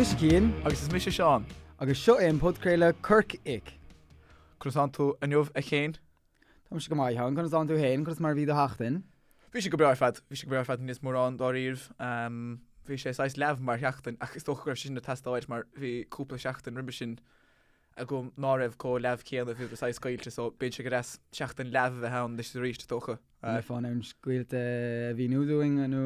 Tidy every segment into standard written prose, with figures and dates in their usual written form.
mise Cian. Agus is mise Seán. Agus seo é an podchraoladh Corc Ic. Conas tánn tú inniu a Chéin? Táimse go maith, a Sheáin. Conas tánn tú féin? Conas mar a bhí do sheachtain? Bhí sé go breá ar fad. Bhí sé go breá ar fad níos mórán dáiríribh. Bhí sé saghas leamh mar sheachtain ach is dócha go raibh sé sin ag teastáil mar bhí cúpla seachtain roimhe sin agam ná raibh chomh leamh céanna, bhí saghas scaoilte so bíonn sé go deas seachtain leamh a bheith ann anois is arís is dócha. An mbeifeá in ann scaoilte a mhíniú dúinn nó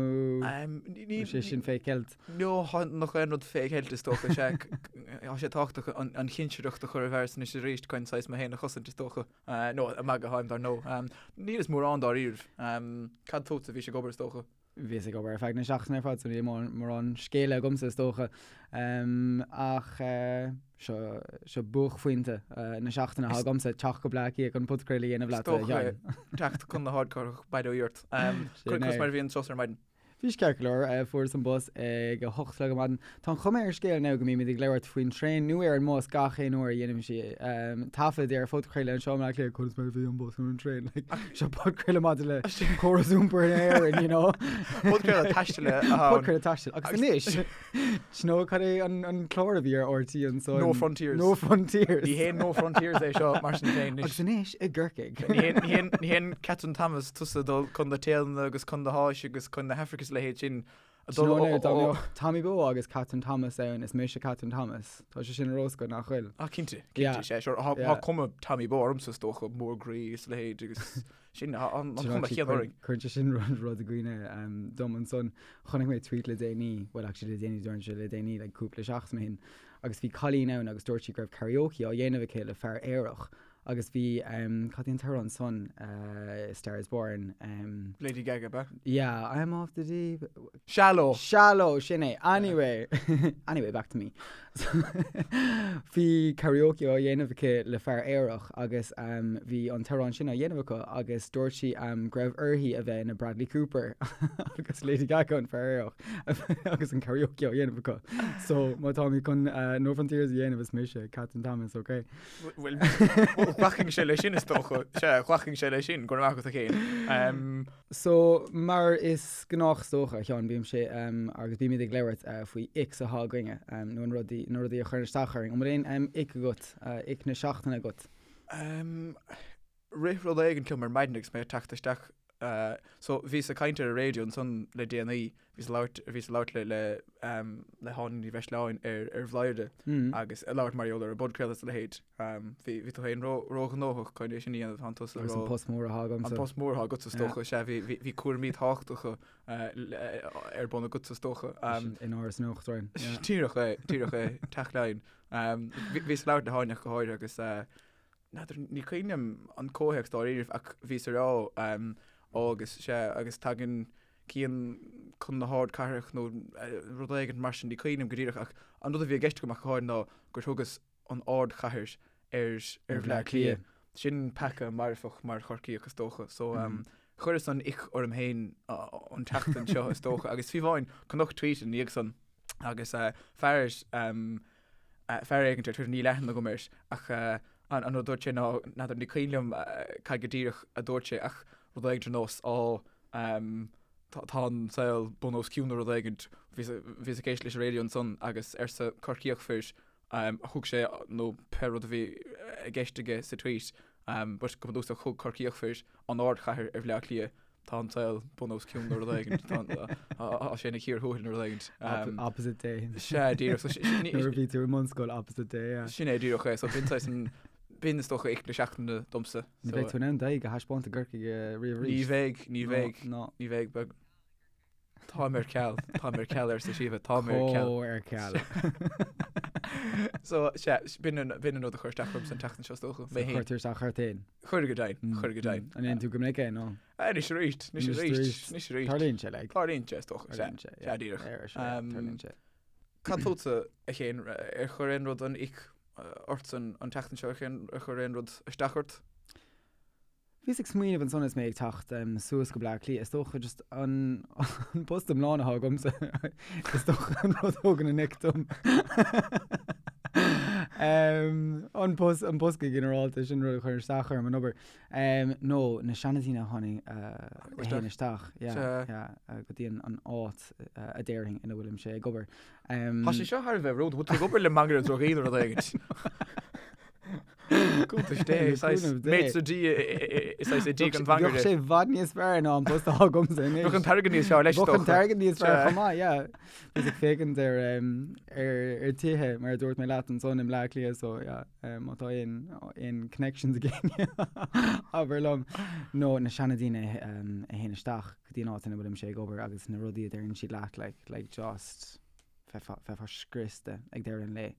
an sé sin fé cheilt? No, nach aon rud fé cheilt is dócha, sea, tá sé tábhachtach an chinsireacht a chur i bhfearas anois is arís chun saghas mé féin a chosaint is dócha. No, ag magadh atáim dar ndóigh. Níl is mórán dáiríribh. Cad fútsa, bhís ag obair is dócha? Bhíos ag obair ar feadh na seachtaine ar fad so níl mórán scéala agamsa is dócha. Ach seo, seo buaicphointe na seachtaine atá agamsa, teacht go Bleá Cliath chun podchraoladh a dhéanamh leat, a Sheáin. Teacht chun na hardchathrach, bail ó Dhia ort. Conas mar a bhí an turas ar maidin? Bhí sé ceart go leor. Fuaireas an bus ag a 8 a chlog ar maidin. Tá an chuma ar an scéal now go mbímid ag labhairt faoin traein nó ar an mbus gach aon uair a dhéanaimid taifead ar phodchraoladh anseo i mBleá Cliath, conas mar a bhí an bus nó an traein, like, seo podchraoladh maidir le córas iompair in Éirinn, you know. Podchraoladh taistil atá ann. Podchraoladh taistil. Agus anois, do you know cad é an, an clár a bhí ar RTÉ ansan? No Frontiers. No Frontiers. Ní haon No Frontiers é seo, mar sin féin. Agus anois i gCorcaigh. Ní haon, ní haon, ní haon Catherine Thomas tusa ag dul chun na Téalainne agus chun na hÁise agus chun na hAfraice is a leithéid sin. Do you know now, dá mbeadh Tommy Bowe agus Catherine Thomas ann, is mise Catherine Thomas. Tá sé sin ar-oscailt, nach bhfuil? Ah, cinnte, cinnte, sea, sure. Tá yeah. cuma Tommy Bowe ormsa is dócha, mór groí is a leithéid agus sin an chuma chéanna orainn. Cuireann sé sin rud rud i gcuimhne um, dom ansan. Chonaic mé tweet le déanaí, well actually le déanaí, dúirt sé le déanaí, like cúpla seachtain ó shin, agus bhí cailín ann agus dúirt sí go raibh karaoke á dhéanamh aici le fear aerach Agus bhí, cad é an t-amhrán san, Star is Born. Lady Gaga, ab ea? Yeah, I'm off the deep. Shallow! Shallow, sin é. Anyway, anyway, back to me. Bhí karaoke á dhéanamh aici le fear aerach agus bhí an t-amhrán sin á dhéanamh acu agus dúirt sí go raibh uirthi a bheith ina Bradley Cooper agus Lady Gaga an fear aerach agus an karaoke á dhéanamh acu. So má táimid chun No Frontiers a dhéanamh is mise Catherine Thomas, okay? Bhuel, ghlacfainnse leis sin is dócha. Sea, ghlacfainnse leis sin, go raibh maith agat a Chéin. So, mar is gnách is dócha, a Sheáin, bímse agus bímid ag labhairt faoi icks atá againne, nó an rudaí, na rudaí a chuireann isteach orainn. An bhfuil aon ick agat, ick na seachtaine agat? Rith rud éigin liom ar maidin agus mé ag teacht isteach. So, bhíos ag caint ar an raidió ansan le déanaí, bhíos ag labhairt, bhíos ag labhairt le, le, le hÁine Ní Bhreisleáin ar, ar Bhladhaire agus ag labhairt mar gheall ar an bpodchraoladh is a leithéid. Bhí, bhí tú féin ró, róghnóthach chun é sin a dhéanamh, tánn tusa Agus an post mór atá agamsa. An post mór atá agatsa is dócha, sea, bhí, bhí, bhí cúraimí tábhachtacha ar bun agatsa is dócha. In Áras an Uachtaráin. Díreach é, díreach é, Teach Laighean. Bhíos ag labhairt le hÁine ach go háirithe agus, N'fheadar, ní cuimhin liom an comhthéacs dáiríribh ach bhíos ag rá ó agus sea agus tagann Cian chun na hardchathrach nó rud éigin mar sin, ní cuimhin liom go díreach ach an rud a bhí i gceist agam ach go háirithe ná gur thugas an ardchathair ar ar Bhleá Cliath. Sin peaca marfach mar Chorcaíoch is dócha so chuireas an ick orm féin an tseachtain seo is dócha agus fiú amháin chonac tweet ina dhiaidh san agus fear fear éigin ar Twitter, níl aithne agam air, ach an rud a dúirt sé ná, n'fheadar, ní cuimhin liom cad go díreach a dúirt sé ach rud éigin ar nós, á, tá an saol bun os cionn nó rud éigin. Bhíos ag éisteacht leis an raidió ansan agus arsa Corcaíoch fir, thug sé, nó pé rud a bhí i gceist aige sa tweet, but go bunúsach thug Corcaíoch fir an ardchathair ar Bhleá Cliath. Tá an saol bun os cionn nó rud éigin. Tá sé ina chíor thuathail nó rud éigin. Opposite day. Sea, díreach. So, Nuair a bhí tú i mbunscoil, opposite day, yeah. Sin é díreach é. So b'in saghas an, b'in is dócha ick na seachtaine domsa. Ní bheidh tú in ann d'aghaidh a thaispeáint i gCorcaigh riamh arís. Ní bheidh, ní bheidh, ní bheidh. Beag. Táim ar ceal, táim ar ceal arsa Síomha, táim ar ceal. Chomh ar ceal. So, sea, b'in an, b'in an rud a chuir isteach ormsa an tseachtain seo is dócha. Mé féin. Chuir tú isteach ort féin? Chuir go deimhin, chuir go deimhin. An ndéanann tú go minic é, nó? Anois arís, anois arís, anois arís. Tarlaíonn sé, like. Tarlaíonn sé, is dócha, sea. Tarlaíonn sé, yeah. Sea, díreach. Tarlaíonn sé. Cad fútsa, a Chéin, ar chuir aon rud an ick ortsa an tseachtain seo, ar chuir aon rud isteach ort? Bhíos ag smaoineamh ansan is mé ag teacht suas go Bleá Cliath, is dócha just an post iomlán atá agamsa, is dócha an rud a thugann an ick dom. An post, an post go ginearálta, sin rud a chuireann isteach orm an obair. Nó na seandaoine a tháinig, a théann isteach, yeah, yeah, go dtí an áit a déarfainn ina bhfuilimse ag obair. Tá sé seo thar a bheith rúnda, bhfuil tú ag obair le mangaire drugaí nó rud éigin? Cuntas Dé, saghas maître d' saghas i dtigh an mhangaire. Bheadh sé i bhfad níos fearr ná an post atá agamsa anois. Bheadh an t-airgead níos fearr leis, Bheadh an t-airgead níos fearr chomh maith, yeah. Bhíos ag féachaint ar ar tithe mar a dúirt mé leat ansan i mBleá Cliath so yeah má tá aon aon connections ag éinne abair liom. Nó na seandaoine a théann isteach go dtí an áit ina bhfuilimse ag obair agus na rudaí a deireann siad leat like like just bheifeá scriosta ag deireadh an lae.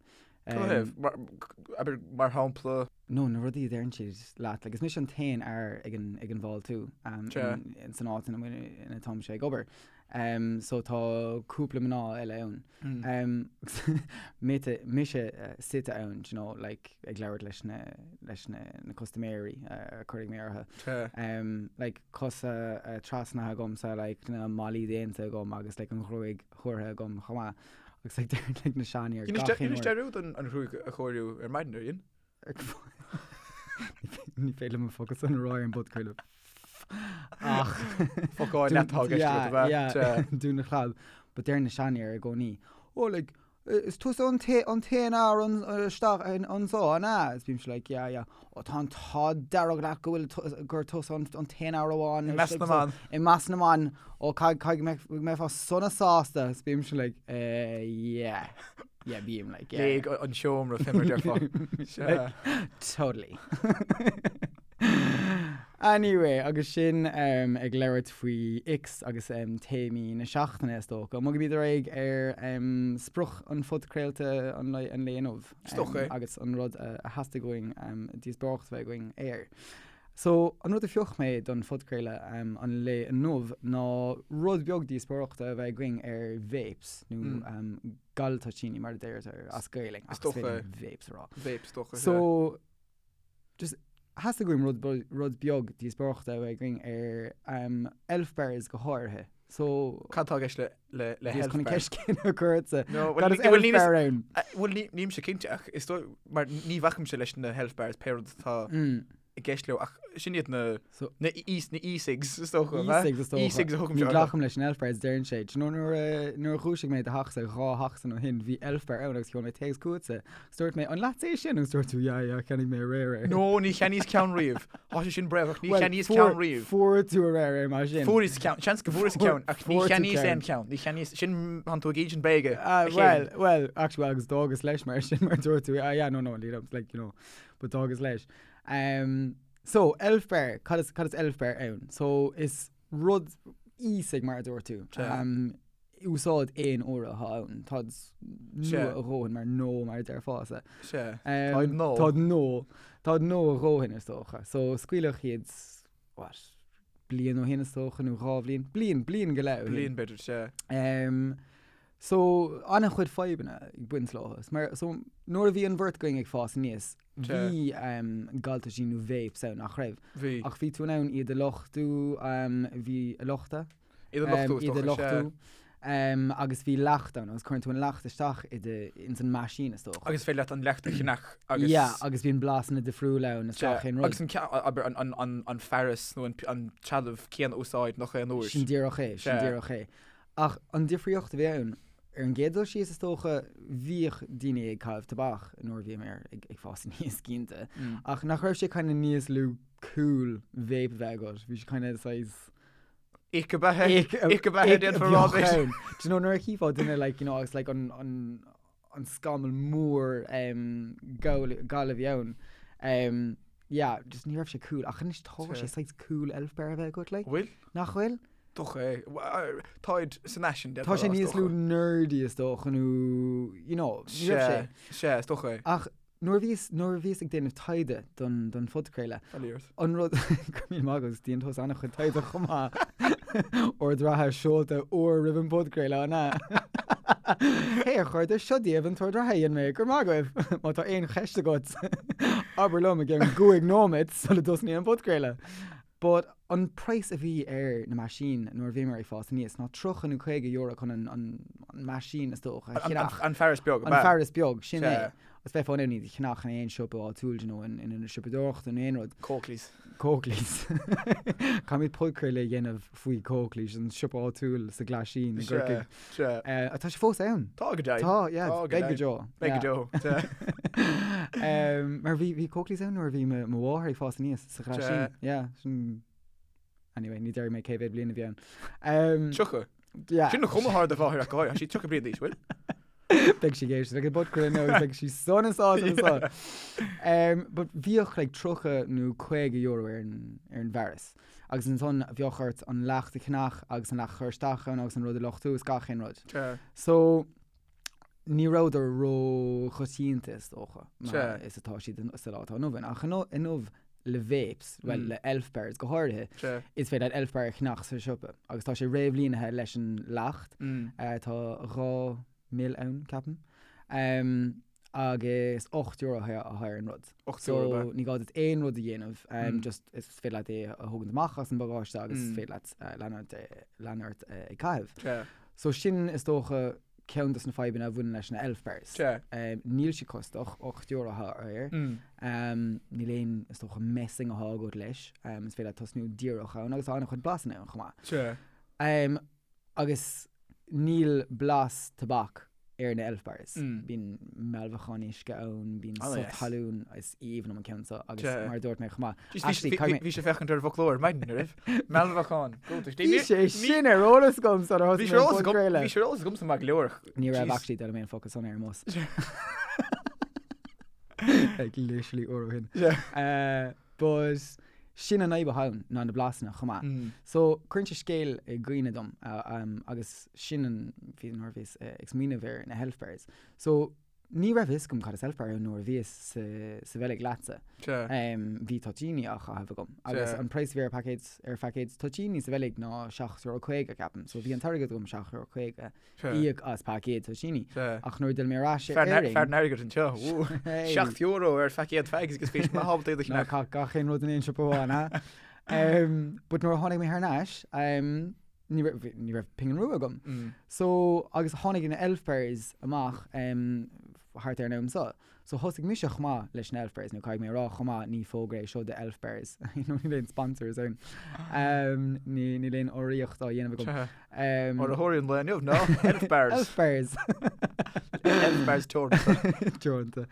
Abair mar shampla. No, na rudaí a deireann siad leat, like is mise an t-aon fhear ag an ag an bhfáiltiú san áit ina bhfuil ina táimse ag obair. So tá cúpla mná eile ann. Mite, mise suite ann, do you know, like ag labhairt leis na leis na na custaiméirí a cuirfidh mé orthu. Like cosa trasnaithe agamsa, like na malaí déanta agam agus like an ghruaig chóirithe agam chomh maith. Agus like deir like na seanfhir gach aon uair. Dheinis dearúd an ghruaig a chóiriú ar maidin ar dhein? Ní féidir liom an focal san a rá ar an bpodchraoladh. Ach Focáil leat atá i gceist agat, ab ea? Yeah, dún do chlab. But deir na seanfhir i gcónaí, Oh like, is tusa an t-aon fhear isteach anso, an ea? Is bímse like, yeah, yeah. Ó tá an t-ádh dearg leat go bhfuil gur tusa an t-aon fhear amháin. I measc na mban. I measc na mban. Ó caithfidh go mbeifeá sona sásta. Is bímse like, eh, yeah. Yeah, bím like, yeah. Léig an seomra fé mar a déarfá. Like, totally. Anyway, agus sin um, ag labhairt faoi icks agus um, téamaí na seachtaine is dócha. Bogaimid ar aghaidh ar um, sprioc an phodchraolta an lae, an lae inniu. Is dócha é. Agus an rud a, a theastaigh uainn um, díospóireacht a bheith againn air. So, an rud a phioc mé don phodchraoladh um, an lae inniu ná rud beag díospóireachta a bheith againn ar vapes, nó mm. um, galtoitíní mar a deirtear as Gaelainn, ach is féidir vapes a rá. Vapes, dócha. So, just theastaigh uaim rud, rud beag díospóireachta a bheith againn ar um, elf bars go háirithe. So, Cad tá i gceist le, le, le Bhíos health chun an bar? ceist céanna a chur ortsa. No, Cad is bhuel, elf níl bar ann? Bhuel, ní, nílimse cinnte ach is dóigh, mar ní bhacaimse leis na health bars pé rud atá Mm. i gceist leo ach sin iad na, So, na e, na e-cigs is dócha, ab ea? E-cigs is dócha. E-cigs a thugaimse Ní orthu. ghlacaim leis an elf bars, deireann sé. Do you know nuair a, nuair a dhúisigh mé do theachsa 2 sheachtain ó shin, bhí elf bar ann agus sheol mé téacs chugatsa. Agus dúirt mé, an leatsa é sin? Agus dúirt tú, yeah, yeah, cheannaigh mé aréir é. No, ní cheannaíos ceann riamh. Tá sé sin bréagach, ní Well, cheannaíos fuair- ceann riamh. Fuair tú aréir é mar sin. Fuaireas ceann, seans go bhfuaireas Fuair- ceann, ach ní fuair tú cheannaíos ceann. aon cheann. Ní cheannaíos, sin, tánn tú ag insint bréige. Ah, a chéile. well, well, actually, well, agus d'fhágas leis mar sin, mar dúirt tú, ah, yeah, no, no, lead up, like, you know, but d'fhágas leis. Um, so, elf bar, cad is, cad is elf bar ann? So, is rud e-cig mar a dúirt tú. Sea. Um, úsáid aon uaire atá ann. Táid Sea. nua a dhóthain mar nó mar a déarfása. Sea. Um, Táid nua. Táid nua. Táid nua a dhóthain is dócha. So, scaoileadh iad, what, bliain ó shin is dócha nó 2 bhliain? Bliain, bliain go leith ó shin. Bliain b'fhéidir, sea. Um, So, an-chuid fadhbanna ag baint leo. Mar, so, nuair a bhí an bheirt againn ag fás aníos, bhí um, galtoitíní nó vapes ann, nach raibh? Bhí. Ach bhí tú in ann iad a luchtú, um, bhí a luchtadh? Iad a luchtú, is Iad a dócha, sea. luchtú. Um, agus bhí leacht ann, agus cuireann tú an leacht isteach i do, ins an meaisín, is dócha. Agus féidir leat an leacht a cheannach agus... Yeah, agus bíonn blasanna difriúla ann, is Sea, gach aon rud. Agus an, abair, an, an, an, an fearas nó an, an trealamh céanna a úsáid nach aon uair. Sin díreach é, sin Sea. díreach é. Ach an difríocht a bhí ann, ar an gcéad dul síos is dócha, bhíodh daoine ag caitheamh tobac nuair a bhíomar ag fás aníos cinnte, ach nach raibh sé kind of níos lú cool vape a bheith agat, bhí sé kind of saghas Ick ab ea é? Ick ab ea é, déanfar a rá b'fhéidir. Do you know nuair a chífeá duine like you know agus like an an an scamall mór um gal gal a bhí ann um yeah just ní raibh sé cool ach anois tá sé saghas cool elf bar a bheith agat like. Bhfuil? Nach bhfuil? Dócha é. Táid san fhaisean, Tá sé níos lú nerdy is dócha nó, you know, ní raibh sé. Sea, is dócha é. Ach nuair a bhíos, nuair a bhíos ag déanamh taighde don, don phodchraoladh, an rud, go raibh míle maith agat, déanann tusa an-chuid taighde chomh maith. Ord reatha seolta uair roimh an bpodchraoladh, an ea? Hey, a chairde, seo daoibh an t-ord reatha a dhein mé, go raibh maith agaibh! Má tá aon cheist agat, abair liom i gceann gcúig nóiméad sula dtosnaíonn an podchraoladh. But an praghas a bhí ar na meaisín nuair a bhíomar ag fás aníos ná 30 nó 50 euro chun an an meaisín is dócha a cheannach. An fearas beag, An fearas beag, sin é. Agus bheifeá in ann iad a cheannach in aon siopa áitiúil, you know, in ionad siopadóireachta nó aon rud. Coakley's. Coakley's. Caithfimid podchraoladh a dhéanamh faoi Coakley's, an siopa áitiúil sa Ghlaisín i gCorcaigh. Sea, sea. Tá sé fós ann. Tá go deimhin. Tá, yeah, Tá go beidh go deimhin. deo. Beidh go deo, sea. Mar bhí, bhí Coakley's ann nuair a bhí mo, mo mháthair ag fás aníos sa Ghlaisín. Sea. Yeah, sin, anyway, ní déarfaidh mé cé mhéad bliain a bhí ann. Um, 30. Yeah. Sin an chuma atá ar do mháthair ach go háirithe, tá sí 30 bliain d'aois, bhfuil? Beidh sí ag éisteacht leis an bpodchraoladh nó beidh sí sona sásta anso. Um, but bhíodh like 30 nó 50 euro ar an, ar an bhfearas. Agus ansan bheadh ort an leacht a cheannach agus an leacht a chur isteach ann agus an rud a luchtú is gach aon rud. Sea. So, ní rabhadar ró-choitianta is dócha, mar Sea. is atá siad sa lá atá inniu ann. Ach inniu le vapes, bhuel Mm. le elf bars go háirithe, Sea. is féidir leat elf bar a cheannach sa siopa agus tá sé réamhlíonithe leis an leacht. Mm. Tá 2 ml ann, ceapaim. Um, agus €8 atá ar an rud. €8 So ab ea? ní gá duit aon rud a dhéanamh, Mm. just is féidir leat é a thógaint amach as an bpagáiste agus is Mm. féidir leat lean ort, lean ort ag caitheamh. Sea. So sin is dócha ceann dos na fadhbanna a bhaineann leis na elf bars. Sea. Níl siad costach, €8 atá air. Mm. Níl aon, is dócha, messing atá agat leis. Is féidir leat tosnú díreach ann agus tá an-chuid blasanna ann chomh maith. Sea. Agus níl blas tobac ar na elf bars. Mm. Bíonn mealbhacán uisce ann, bíonn Oh, sú yes. talún, is aoibhinn liom an ceann seo agus Sea. mar a dúirt mé chomh maith. Jeez, bhí- Actually, bhí- caithfidh mé- Bhí sé féachaint ar an bhfoclóir maidin, an raibh? Mealbhacán. Go, tá- Bhí sé sin ar eolas agam sular Bhí thosaigh sé mé ar an eolas agam- podchraoladh. bhí sé ar eolas agamsa maith go leor. Ní raibh Jeez. actually d'fhoghlaim mé an focal san ar an mbus. Like literally uair ó shin. Yeah. Uh, but sin an fhadhb atá ann ná na blasanna chomh maith. Mm. So cuireann sé scéal i gcuimhne dom uh, um, agus sin an bhí nuair a bhíos uh, ag smaoineamh ar na Elf Bars. So ní raibh fhios agam cad is Elf Bar ann nuair a bhíos sa, sa Bheilg leatsa. Sea. Um, bhí toitíní á chaitheamh agam. Agus Sea. an praghas a bhí ar paicéad ar phaicéad toitíní sa Bheilg ná €7.50 ceapaim. So bhí an t-airgead agam €7.50 Sea. íoc as paicéad toitíní. Sea. Ach nuair a d'fhill mé ar ais ar Fear na- Éirinn... fear an airgid anseo. Wú. Hey. €7 ar phaicéad fags agus bhí maith ábalta iad a Ná cheannach. caith gach aon rud in aon siopa amháin, ha? Um, but nuair a tháinig mé thar n-ais, um, ní raibh, ní raibh pingin rua agam. Mm. So, agus tháinig na Elf Bars amach um, thart ar an am seo. So thosaigh mise chomh maith leis na Elf Bars, nó caithfidh mé a rá chomh maith, ní fógra é seo do Elf Bars. Níl aon sponsors ann. Um, ní, níl aon urraíocht á dhéanamh agam. Sea. Um, Urraitheoirí an lae inniu ná Elf Bars. Elf Bars. Elf Bars Teoranta. Teoranta.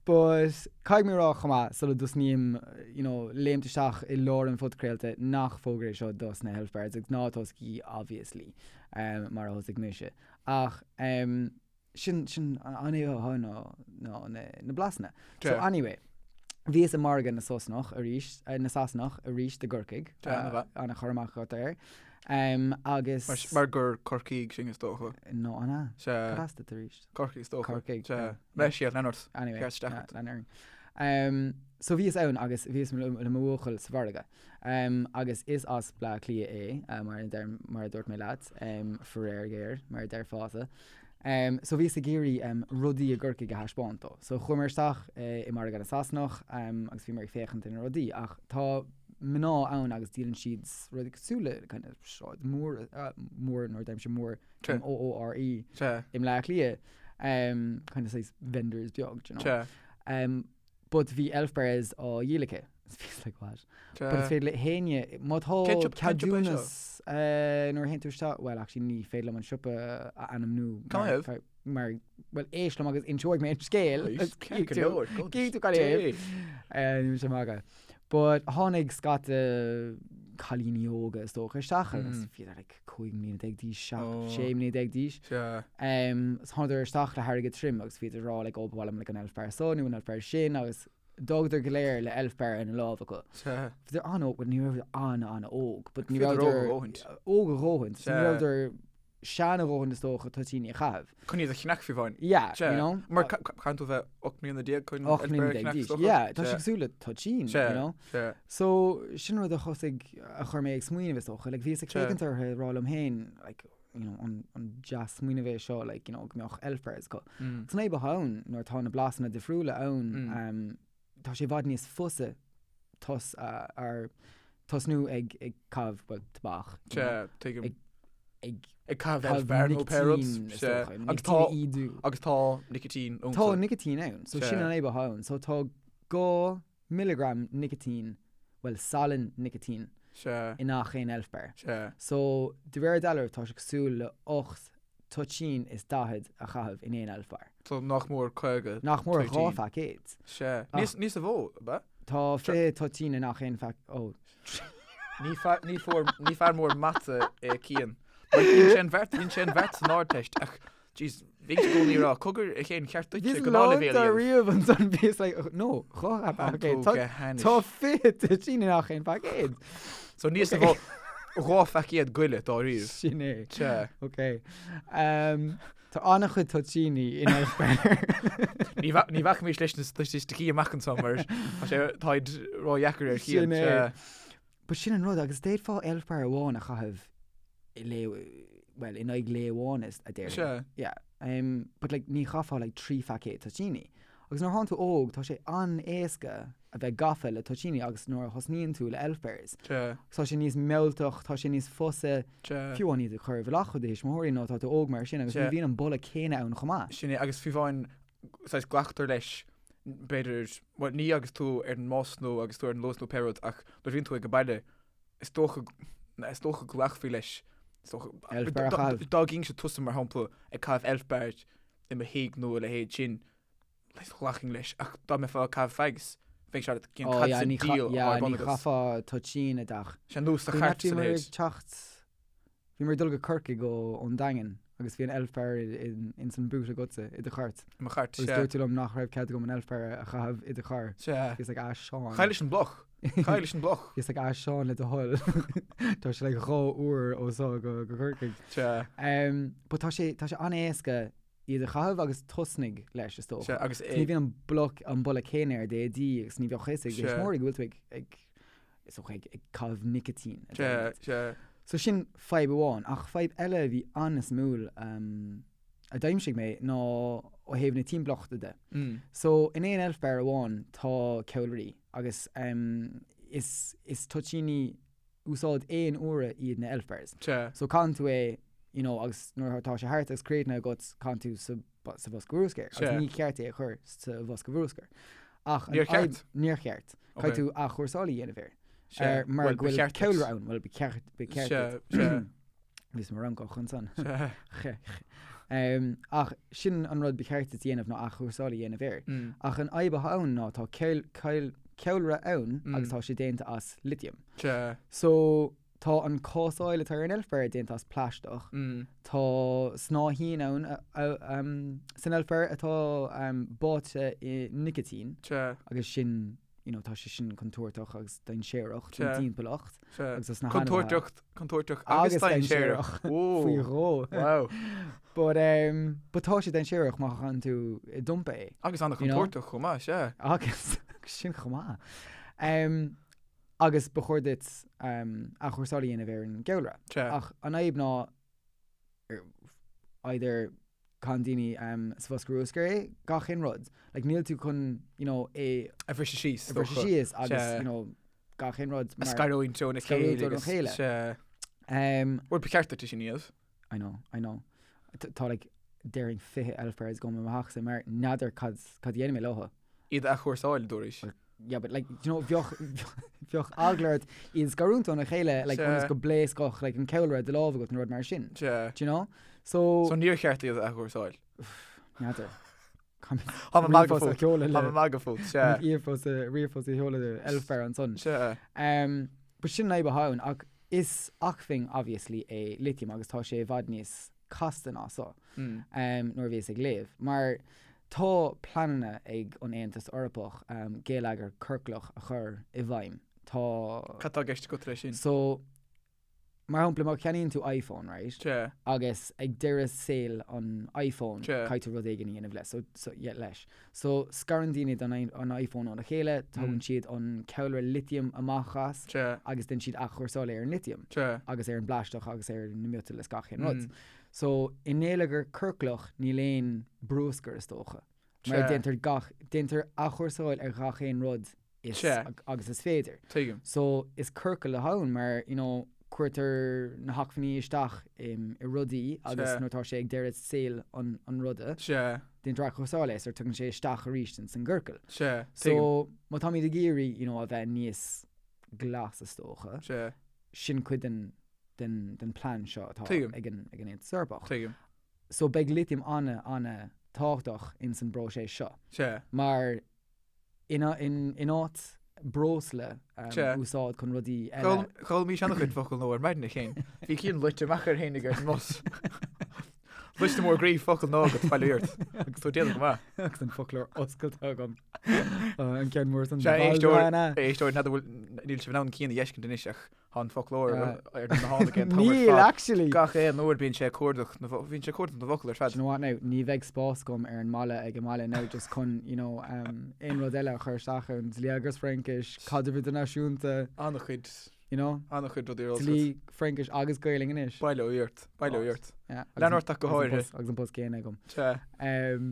But caithfidh mé a rá chomh maith, sula dtosnaím, you know, léimt isteach i lár an phodchraolta nach fógra é seo dos na Elf Bars, agus ná tosaigí obviously, um, mar a thosaigh mise. Ach um, sin, sin an fhadhb atá ann ná, ná na, na blasanna. So Sea. anyway, bhíos i margadh na Sasanach arís, eh, na Sasanach arís i gCorcaigh. Sea, ana mhaith. Ana chur amach agat air. Um, agus... Mar, mar gur Corcaígh sinn is dócha. No, an ea? Sea. Cad as duit arís? Corcaigh is dócha. Corcaigh, Sea. yeah. Leis siad, lean ort. Anyway, Ceart isteach yeah, ort. lean orainn. Um, so bhíos ann agus bhíos le, le mo bhuachaill sa mhargadh. Um, agus is as Bleá Cliath é, uh, mar, a deir, mar a dúirt mé leat, um, faraor géar, mar a déarfása. Um, so bhíos ag iarraidh um, rudaí i gCorcaigh a thaispeáint dó. So chuamar isteach uh, i margadh na Sasanach um, agus bhíomar ag féachaint ar na rudaí, ach tá mná ann agus díolann siad rudaí cosúil le kind of sráid mór, uh, mór nuair a deirimse mór, Sea. M-O-O-R-E, Sea. i mBleá Cliath, um, kind of saghas vendors beag, do you know. Sea. Um, but bhí Elf Bars á dhíol aici. Is bhíos like, what? But is Sea. féidir le héinne, má tá Cén siopa- cén siopa é seo? ceadúnas uh, nuair a théann tú isteach, well actually ní féidir liom an siopa a ainmniú Cá mar, thaobh? mar, well éist liom agus inseoidh mé an scéal. Éist, Agus ceart go cífidh tú- leor, go cífidh tú cad é. dé. Uh, Níl sé magadh. But tháinig scata cailíní óga is dócha isteach agus Mm. bhíodar like 15 mbliana d'aois, 7, Oh. 16 mbliana d'aois. Sea. Um, so thánadar isteach le hairgead tirim agus bhíodar ag rá like, oh, ba mhaith liom like, an elf bar seo nó an elf bar sin agus d'fhágadar go léir le elf bar ina lámh acu. Sea. Bhíodar an-óg, well, ní raibh an-an-óg, but ní Bhíodar rabhadar óg a dhóthaint. óg a dhóthaint. So ní Sea. rabhadar sean a dhóthaint is dócha toitíní a chaitheamh. Chun iad a cheannach fiú amháin. Yeah, Sea. you know? Mar caitheann tú bheith 18 mbliana chun 18 mbliana d'aois. Yeah, tá sé Sea. cosúil le toitín, Sea. you know? Sea. So sin rud a thosaigh a chuir mé ag smaoineamh is dócha. Like, bhíos ag Sea. féachaint orthu ag rá liom féin, like, you know, an, an deas smaoineamh é seo, like, you know, go mbeadh elf bars acu. Mm. San fhadhb atá ann nuair atá na blasanna difriúla ann, Mm. um, tá sé i bhfad níos fusa tos, uh, ar tosnú ag, ag caitheamh, well, tobac, you know. Sea, tuigim. Ag. Ag Ag caitheamh elf bar nó pé rud. Nicitín, is Sea. dócha. Agus Nicitín tá a ídiú. agus tá nicitín iontu. Tá nicitín ann, so Sea. sin an fhadhb atá ann. So tá 2 milligram nicitín, bhuel salann nicitín, Sea. i ngach aon elf bar. Sea. So de réir dealraimh tá sé cosúil le 8 toitín is 40 a chaitheamh in aon elf bar. So nach mór 50 Nach mór toitín. 2 phaicéad. Sea. Ach- Níos níos a mhó, ab ea? Tá 20 toitín i ngach aon phaic, ó. Ní fear, ní fuair, ní fear mór mata é Cian. Mar dhein sé an bheart, dhein sé an bheart san Ardteist ach, jeez, bhínnse i gcónaí ag rá, cogar a Chéin cheart duitse Bhíos gnáthleibhéal lán a dhéanamh. riamh ansan, bhíos like, no, 2 Tá paicéad. tú Tá go hainnis. tá 20 toitín i ngach aon phaicéad. So níos a mhó, 2 phaicéad goile dáiríre. Sin é. Sea. Ok. Um, Tá an-chuid toitíní in elf bar. Ní bha- ní bhacfaimis leis na staitisticí amach anseo mar tá sé táid ródheacair ar Chian. Sin é. Sea. But sin an rud, agus d'fhéadfá elf bar amháin a chaitheamh i lae, well, in aghaidh lae amháin is a déarfainn. Sea. Yeah. Um, but like, ní chaithfeá like 3 phaicéad toitíní. Agus nuair atánn tú óg, tá sé an-éasca a bheith gafa le toitíní agus nuair a thosnaíonn tú le elf bars, Sea. tá sé níos mealltach, tá sé níos fusa Sea. fiú amháin iad a chur i bhfolach ó do thuismitheoirí nó tá tú óg mar sin agus ní Sea. bhíonn an boladh céanna ann chomh maith. Sin é, agus fiú amháin, saghas glactar leis, b'fhéidir, bhuel, ní agus tú ar an mbus nó agus tú ar an Luas nó pé rud, ach nuair a bhíonn tú ag an baile, is dócha, is dócha go nglacfaí leis, is dócha, Elf bar a chaitheamh. dá gcífinnse tusa mar shampla ag caitheamh elf bar i mo thigh nó a leithéid sin, ghlacfainn leis, ach dá mbeifeá ag caitheamh fags, bheadh sé cén Ó, cad yeah, sa ní cha- diabhal yeah, atá ar bun ní agat. chaithfeá toitín i dteach. Sé nó sa Bhí chairt bhí sa muid ag leithéid. teacht, bhí muid ag dul go Corcaigh ó ón Daingean agus bhí an elf bar in ins an boot agatsa i do chairt. I mo chairt, Agus sea. dúirt tú liom nach raibh cead agam an elf bar a chaitheamh i do charr. Sea. Bhíos like, ah, Seán. Caith leis an mbloc. Caith leis an mbloc. Bhíos like, ah, Seán le do thoil. Tá sé like 2 uair ó seo go go Corcaigh. Sea. Um, but tá sé tá sé an-éasca iad a chaitheamh agus tosnaigh leis, is dócha. Sea, agus Ní é. bhíonn an bloc, an boladh céanna ar d'éadaí agus ní bheadh a fhios ag Sea. thuismitheoirí go bhfuil tú ag, ag, is dócha, ag, ag caitheamh nicitín. a Sea, deirimid. sea. So sin fadhb amháin, ach fadhb eile a bhí an-suimiúil um, a d'aimsigh mé ná ó thaobh na timpeallachta de. Mm. So in aon elf bar amháin tá ceallraí agus um, is, is toitíní úsáid aon uaire iad na elf bars. Sea. So caitheann tú é, you know, agus nuair atá sé thart agus críochnaithe agat, caitheann tú sa, sa bhosca bruscair. Agus Sea. ní ceart é a chur sa bhosca bruscair. Ach an Níor fhadhb- cheart? Níor cheart. Ok. Caithfidh tú athchúrsáil a dhéanamh air. Sea. Ar, mar Bhuel, go ba bhfuil cheart duit. ceallra ann. Bhuel, ba cheart, ba cheart Sea, duit. sea. Bhíos mo Fhrancach ansan. Sea. Che, che. Um, ach sin an rud ba cheart duit a dhéanamh ná athchúrsáil a dhéanamh air. Mm. Ach an fhadhb atá ann ná tá ceall, ceall, ceallra ann Mm. agus tá sé déanta as litiam. Sea. So tá an cásáil atá ar an elf bar déanta as plaisteach. Mm. Tá snáithín ann a, a, um, san elf bar atá um, báite i nicitín Sea. agus sin you know, tá sé sin contúirteach agus dainséarach don Sea. timpeallacht Sea. agus dos na hainmhithe. Contúirteach, contúirteach agus Agus dainséarach. dainséarach. Faoi Whoa. dhó. Wow. But, um, but tá sé dainséarach má chaitheann tú i dumpa é. Agus You know? an-chontúirteach chomh maith, sea. Agus sin chomh maith. Um, agus ba chóir duit um, athchúrsáil a dhéanamh ar an gceallra. Sea. Ach an fhadhb ná either caitheann daoine um, sa bhosca bruscair é, gach aon rud. Like, níl tú chun, you know, é A bhriseadh síos, a bhriseadh dócha. síos agus, Sea. you know, gach aon rud. A mar- scarúint óna Scarúint chéile óna agus- chéile. Sea. Um, Bhuel, ba cheart duit é sin a dhéanamh. I know, I know. Tá like déarfainn 20 elf bars agam i mo theachsa mar n'fheadar cad cad a dhéanfaidh mé leo. Iad a athchúrsáil, dúraís. Yeah, but like, you know, bheadh bheadh eagla ort iad a scarúint óna chéile like Sea. ionas go bpléascfadh like an ceallra i do lámh agat nó rud mar sin. Sea. Do you know? So, So níor cheart iad a athchúrsáil. n'fheadar. Tá mé ag magadh Ríomhphost a fút. sheoladh Tá le mé ag magadh fút, sea. ríomhphost a ríomhphost a sheoladh le elf bar ansan. Sea. Um, but sin an fhadhb atá ann ach Is acmhainn obviously é litiam agus tá sé i bhfad níos casta ná so nuair a bhíos ag léamh. Mar tá pleananna ag an Aontas Eorpach geilleagar ciorclach a chur i bhfeidhm. Tá. Cad tá i gceist agat leis sin? So, mar shampla má cheannaíonn tú iPhone, right? Sea. Agus ag deireadh saoil an iPhone Sea. caithfidh tú rud éigin a dhéanamh leis. So, so, yeah, leis. So, scarann daoine an iPhone óna chéile, tógann siad an ceallra litiam amach as Sea. agus déanann siad athchúrsáil ar an litiam Sea. agus ar an bplaisteach agus ar na miotail is gach aon rud. So, i ngeilleagar ciorclach níl aon bruscar is dócha. Mar Sea. déantar gach, déantar athchúrsáil ar gach aon rud is Sea. agus is féidir. Tuigim. So, is ciorcal atá ann mar, you know, Cuirtear na hacmhainní isteach i rudaí agus nuair atá sé ag deireadh saoil an ruda, déantar athchúrsáil é so tagann sé isteach arís ins an gciorcal. So má táimid ag iarraidh you know a bheith níos glas is dócha, sin cuid den den den plean seo atá ag an ag an Aontas Eorpach. So beidh litiam ana ana tábhachtach ins an bpróiseas seo. Mar in áit breosla a úsáid chun rudaí eile. D'fhoghlaimís an-chuid focal nua ar maidin a Chéin. Bhí Cian luite amach air fhéinig ar an mbus. Liosta mór groí focal nua agat, bail ó Dhia ort. Agus tú ag déanamh go maith. Agus an foclóir oscailte agam. An ceann mór san. Sea, éisteoir, éisteoir, n'fheadar bhfuil, níl sibh in ann Cian a fheiscint anois ach Tá an foclóir ar na tháinig an t-am ar Níl, fad. actually! Gach aon uair bíonn sé ag cuardach na bhíonn sé ag cuardach na bhfocal ar fad. Do you know what now, ní bheidh spás agam ar an mballa ag an mbaile now just chun, you know, um, aon rud eile a chur isteach ann, dlí agus Fraincis, caidreamh idirnáisiúnta, An-chuid, you know, an-chuid rudaí ar eolas dlí, Fraincis agus Gaelainn anois. Bail ó Dhia ort, bail ó Dhia ort. Yeah, agus Lean an- ort ach go agus an háirithe. post- Agus an post céanna agam. Sea, Um,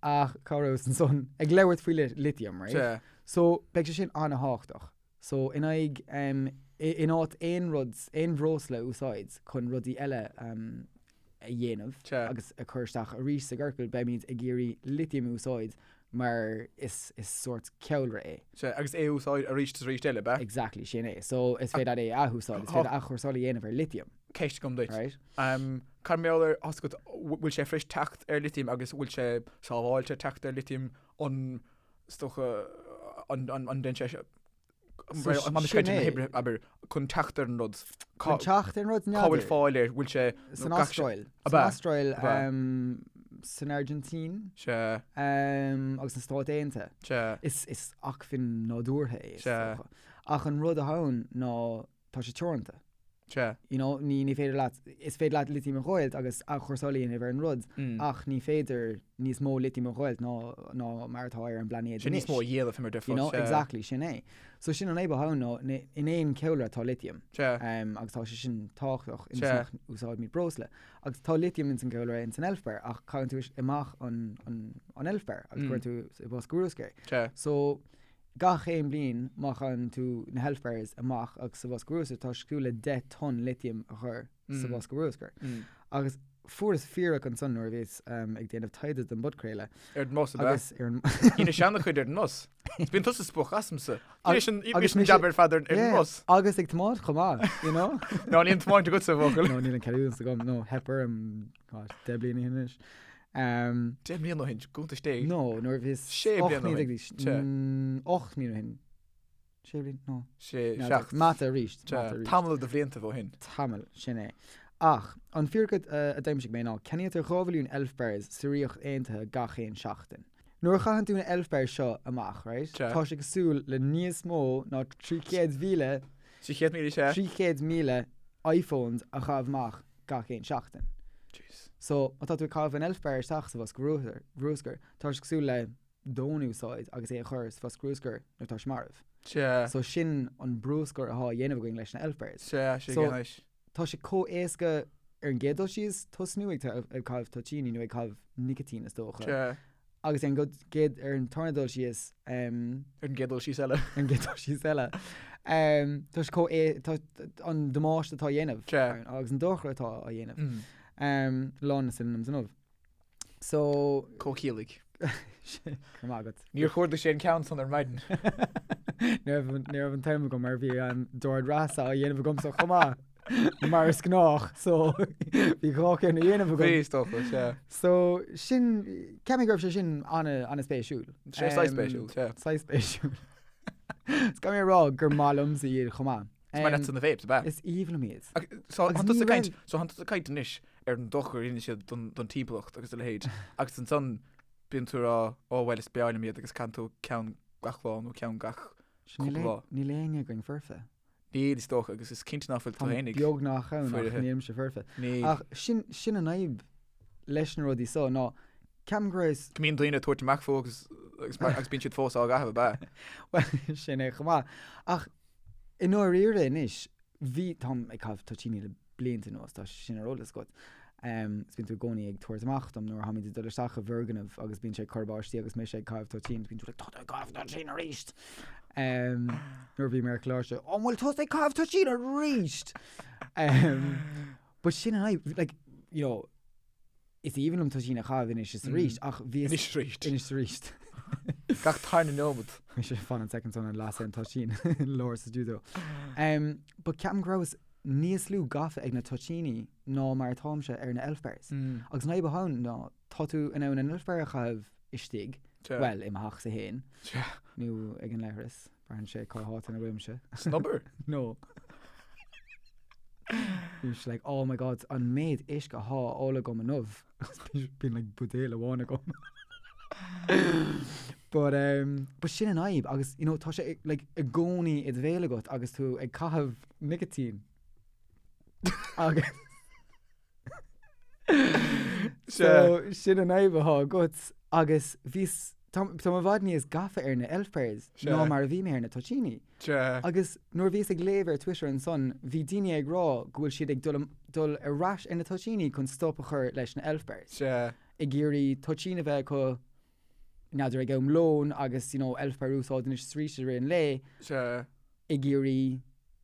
ach cá rabhas ansan? Ag labhairt faoi litiam, right? sea. So, beidh sé sin an-thábhachtach. So, in aghaidh, in áit aon rud, aon bhreosla a úsáid chun rudaí eile a dhéanamh agus a chur isteach arís sa gciorcal, beimid ag iarraidh litiam a úsáid mar is is sórt ceallra é. Sea, agus é a úsáid arís is arís eile, ab ea? Exactly, sin é. So, is féidir leat é a athúsáid, is féidir athchúrsáil a dhéanamh ar litiam. Ceist agam duit. Right? Cad mar gheall ar, tá a fhios agat, bhfuil sé fuirist teacht ar litiam agus bhfuil sé sábháilte teacht ar litiam, an Is dócha an ndéanann sé seo Sin é. Abair chun teacht ar an rud. Chun teacht ar an rud Cá bhfuil fáil air, bhfuil sé San Astráil. San Astráil, san Airgintín. Sea. Agus sna Stáit Aontaithe. Sea. Is acmhainn nádúrtha é, is dócha. Ach an rud atá ann ná tá sé teoranta. Sea. You know, ní, ní féidir leat, is féidir leat litiam a dh'fháilt agus athchúrsáil a dhéanamh ar an rud, ach ní féidir níos mó litiam a dh'fháilt ná, ná mar atá ar an bplainéad Sin anois. níos mó a dhéanamh mar You know, Sea. exactly, sin é. So sin an fhadhb atá ann ná, in aon cheallra tá litiam. Sea. Um, agus tá sé sin tábhachtach ionas Sea. nach úsáidimid breosla. Agus tá litiam ins an gceallra ins an elf bar ach caitheann tú amach an, an, an elf bar agus cuireann tú i bosca bruscair é. Sea. So, Gach aon bliain, má chaitheann tú na hElf Bars amach agus sa bhosca bruscair, tá sé cosúil le 10 tonn litiam a chur sa bhosca bruscair. Agus fuaireas fíric ansan nuair a bhíos ag déanamh taighde don bpodchraoladh. Ar an mbus, ab ea? Agus ar an. Dheinis an-chuid ar an mbus. Is bíonn tusa spoch asamsa. Dheinis an Agus mise- jab ar fad ar an Yeah, mbus. Agus ag tiomáint chomh maith, you know? Ná níl an tiomáint agatsa, a bhuachaill. No, níl an ceadúnas agam. No, theip orm, God, 10 bliana ó shin anois. 10 mbliana ó shin, cuntas Dé. No, nuair a bhíos 6 bliana ó shin. 8 mbliana ó shin. 6 bliana? No. 6, 7. Mata arís. Mata arís. Tamall de bhlianta ó shin. Tamall, sin é. Ach, an fíric a d'aimsigh mé ná, ceannaítear 2 mhilliún Elf Bars sa Ríocht Aontaithe gach aon seachtain. Nuair a chaitheann tú na Elf Bars seo amach, right, tá sé cosúil le níos mó ná 300,000, 300,000 sea. 300,000 iPhones a chaitheamh amach gach aon seachtain. Jeez. So, má tá tú ag caitheamh an Elf Bar isteach sa bhosca bruscair, tá sé cosúil le d'fhón a úsáid agus é a chur sa bhosca bruscair nuair atá sé marbh. Sea. So, sin an bruscar atá á dhéanamh againn leis na Elf Bars. Sea, sé So, anois. tá sé chomh éasca ar an gcéad dul síos tosnú ag ag caitheamh toitíní nó ag caitheamh nicitín is dócha. Sea. Agus ar an gcéad, ar an tarna dul síos, Ar an gcéad dul síos eile. Ar an gcéad dul síos eile. Tá sé chomh, tá an damáiste atá á dhéanamh. Sea. Agus an dochar atá á dhéanamh. Lán na synonyms inniu. So. Comhchiallaigh. Go raibh maith agat. Níor chuardaigh sé an ceann san ar maidin. Ní raibh ní raibh an t-am agam mar bhí an dord reatha á dhéanamh agamsa chomh maith. Mar is gnách, so bhí dhá cheann á dhéanamh agam. Bhí, is dócha, sea. So sin, ceapaim go raibh sé sin an-spéisiúil. Sé saghas spéisiúil, sea. Saghas spéisiúil. Is caithfidh mé a rá gur maith liomsa iad chomh maith. Is maith leatsa na vapes, ab ea? Is aoibhinn liom iad. So Agus thánn tusa ní ag caint, raibh- so thánn tusa ag caint anois ar an dochar a dhéanann siad don, don timpeallacht agus a leithéid agus ansan bíonn tú ag rá, ó bhuel is breá liom iad agus caitheann tú ceann gach lá nó ceann gach Sin níl cúpla lá. Níl éinne againn foirfe. Níl is dócha agus is cinnte ná fuil tú Táim fhéinig. beagnach ann ach foirfe. nílimse foirfe. Níl. Ach sin, sin an fhadhb leis na rudaí so ná ceapaim go raibh Go mbíonn daoine ag tabhairt amach fúthu agus, agus, mar, agus bíonn siad fós á gcaitheamh ab ea? Bhuel, sin é chomh maith. Ach I ndáiríre anois, bhí, táim ag caitheamh toitíní le blianta anuas, tá sé sin ar eolas agat. Is bíonn tú i gcónaí ag tabhairt amach dom nuair a tháimid ag dul isteach i bhfoirgneamh agus bíonn sé ag cur báistí agus mise ag caitheamh toitín, bíonn tú like, tá tú ag caitheamh toitín arís! Nuair a bhí mé ar choláiste, an bhfuil tusa ag caitheamh toitín arís? But sin an fhadhb, like, you know, is aoibhinn liom toitín a chaitheamh anois is arís, ach bhí... Anois is arís. Anois is arís. Gach tarna nóiméad. Bhí sé fan an soicind san an lasadh an toitín i lár sa stiúideo. But ceapaim go rabhas níos lú gafa ag na toitíní ná mar atáimse ar na Elf Bars. Agus an fhadhb atá ann ná tá tú in ann an Elf Bar a chaitheamh istigh, bhuel, i mo theachsa féin, nó ag an leithreas, braitheann sé cá háit ina bhfuilimse. San obair? No. Bhí sé like, oh my god, an méid uisce atá á ól agam inniu. Bíonn like buidéal amháin agam. But, um, but sin an fhadhb agus, you know, tá sé like, i gcónaí i do bhéal agat agus tú ag caitheamh nicotine. Agus So, sin an fhadhb atá agat agus bhíos, tá tá mé i bhfad níos gafa ar na Elf Bars ná mar a bhí mé ar na toitíní. Agus nuair a bhíos ag léamh ar Twitter ansan, bhí daoine ag rá go bhfuil siad ag dul dul ar ais ar na toitíní chun stop a chur leis na Elf Bars. Ag iarraidh toitín a bheith acu, n'fheadar ag am lóin agus you know Elf Bar a úsáid anois is arís i rith an lae. Ag iarraidh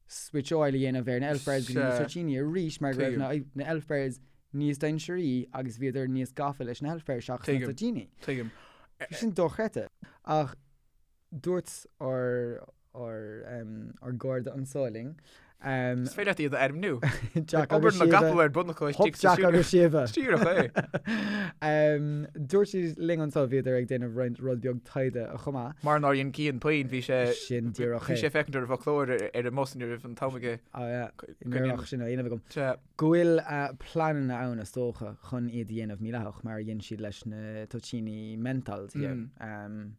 switcháil a dhéanamh ar na Elf Bars go dtí na toitíní arís mar go raibh na na Elf Bars níos dainséaraí agus bhíodar níos gafa leis na Elf Bars seachas na toitíní. Tuigim. Bhí sin dochreidte. Ach dúirt ár ár ár gcairde anso linn Is féidir leat iad a ainmniú. Jack agus Obair na Síomha. gcapall ar bun acu Hop istigh sa Jack agus Síomha. Díreach é. Dúirt siad linn anso bhíodar ag déanamh roinnt rud beag taighde chomh maith. Mar nár dhein Cian puinn, bhí sé Sin díreach bhí é. sé ag féachaint ar an bhfoclóir ar an mbus ní raibh an t-am aige. Ah yeah, ní raibh ach sin á dhéanamh agam. Sea. Go bhfuil pleananna ann is dócha chun iad a dhéanamh mídhleathach mar a dhein siad leis na toitíní menthol thiar.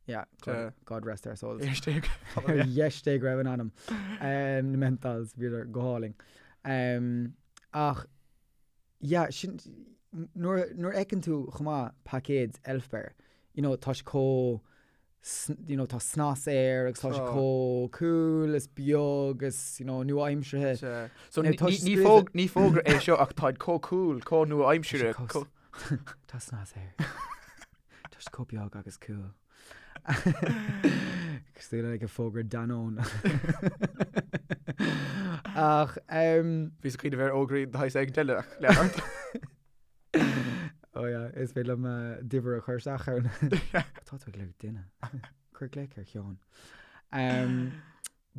Yeah, God, God rest their souls. Ar dheis Dé Ar dheis Dé go raibh a n-anam. Na menthols, bhíodar go hálainn. Ach, yeah, sin, nuair, nuair a fheiceann tú chomh maith paicéad Elf Bar, you know, tá sé chomh, you know, tá snas air agus tá sé chomh cool is beag is, you know, nua-aimseartha. So ní, ní, ní fógra é seo ach táid chomh cool, chomh nua-aimseartha. Tá snas air. Tá sé chomh beag agus cool. Cosúil le like fógra Danone. Ach Bhíos ag cuimhneamh ar fhógraí de shaghas éigin eile ach lean ort. Oh yeah, is féidir liom d'uimhir a chur isteach ann. Tá tú ag lorg duine. Cuir glaoch ar Sheán.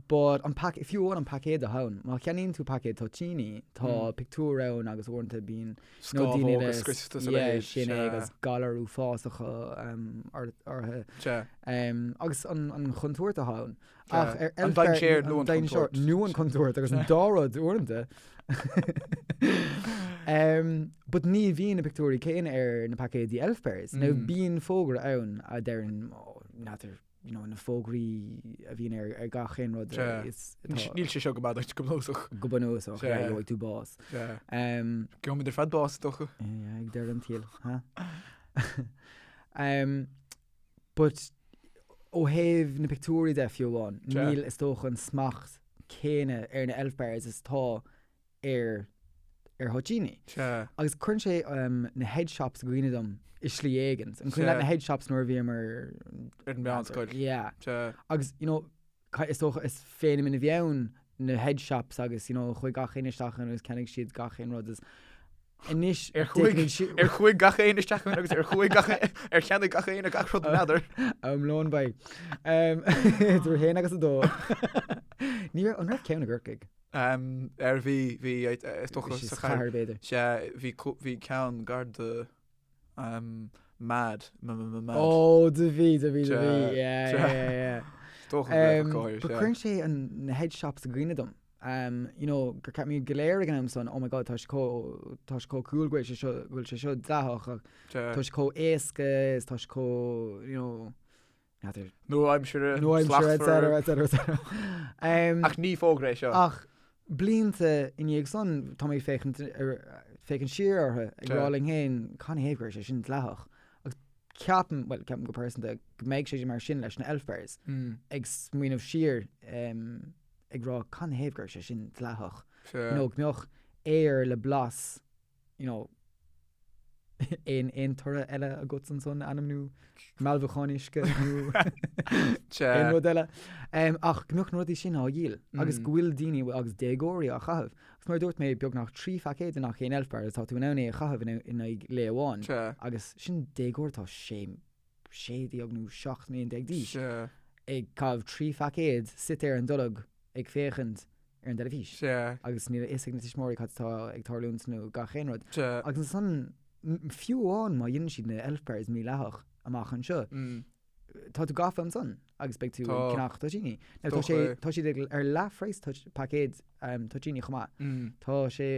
But an pac, fiú amháin an paicéad atá ann, má cheannaíonn tú paicéad toitíní, tá pictiúr ann agus uaireanta bíonn you know, daoine Scámhóga le scriosta sa yeah, leithéid, sin é sea. agus galair uafásacha um, or- orthu. Sea. Um, agus an, an chontúirt atá ann. Sea. Ach ar An Elf Bar- dainséar nó an an dainséar chontúirt. nó an chontúirt agus an dá rud uaireanta. um, but ní bhíonn na pictiúirí céanna ar na paicéidí Elf Bars. Now Mm. bíonn fógra ann a deireann, oh, n'fheadar you know, na fógraí a bhíonn ar, ar gach aon rud Sea. is atá Níl sé seo go maith duit go bunúsach. go bunúsach, Sea. yeah, gheobhaidh tú bás. Sea. Um, Gheobhaimid ar fad bás, is dócha. yeah, ag deireadh an tsaoil, huh? um, but ó thaobh na pictiúirí de fiú amháin, Sea. níl is dócha an smacht céanna ar na Elf Bars is atá ar ar thoitíní. Sea. Agus cuireann sé na head shops i gcuimhne dom i slí éigin. An cuimhin leat na head shops nuair a bhíomar Ar an meánscoil. Yeah. Sea. Agus, you know, is dócha is feiniméan a bhí ann na head shops agus, you know, chuaigh gach éinne isteach ann agus cheannaigh siad gach aon rud is anois Ar chuaigh ar chuaigh gach éinne isteach ann agus ar chuaigh gach ar cheannaigh gach éinne gach rud n'fheadar. Am lóin beidh. Idir a haon agus a dó. Ní raibh, an raibh ceann i gCorcaigh? Ar bhí, bhí, is dócha sa chathair. b'fhéidir. Sea, bhí, bhí ceann gar do Mad, m-m-m-mad. Ó, do bhí, do bhí, do bhí, yeah, yeah, yeah. Is dócha go raibh go háirithe, But sea. cuireann sé an, na head shops i gcuimhne dom. You know, gur cheap muid go léir ag an am san, oh my god, tá sé chomh, tá sé chomh cool go bhfuil sé seo, go bhfuil sé seo dleathach ach tá sé chomh éasca is tá sé chomh, you know, N'fheadar. Nua-aimseartha, Nua-aimseartha, et slachtmhar. cetera, et cetera, et cetera. Um, Ach ní fógra é seo. Ach blianta i ndiaidh san, tá mé ag féachaint ar, féachaint siar orthu, ag rá linn féin, canathaobh go raibh sé sin dleathach. Agus ceapaim, bhuel, ceapaim go pearsanta, go mbeidh sé mar sin leis na Elf Bars, ag smaoineamh siar, um, ag rá canathaobh go raibh sé sin dleathach. Sea. Nó go mbeadh aer le blas, you know, Aon aon toradh eile agat ansan ainm nó mealbhacán uisce nó aon rud eile. Ach go mbeadh na rudaí sin á dhíol agus go bhfuil daoine agus déagóirí á chaitheamh. Agus mar a dúirt mé, beagnach 3 phaicéad i ngach aon Elf Bar agus tá tú in ann é a chaitheamh in aghaidh lae amháin. Agus sin déagóir atá 16 nó 17 mbliana d'aois ag caitheamh 3 phaicéad suite ar an dtolg ag féachaint ar an dteilifís. Agus níl a fhios ag na tuismitheoirí cad atá ag tarlúint nó gach aon rud. Agus ansan, fiú amháin má dhéanann siad na Elf Bars mídhleathach amach anseo, tá tú gafa ansan agus beidh tú ag ceannach toitíní. Now tá sé, tá siad ag, ar leathphraghas paicéad toitíní chomh maith. Tá sé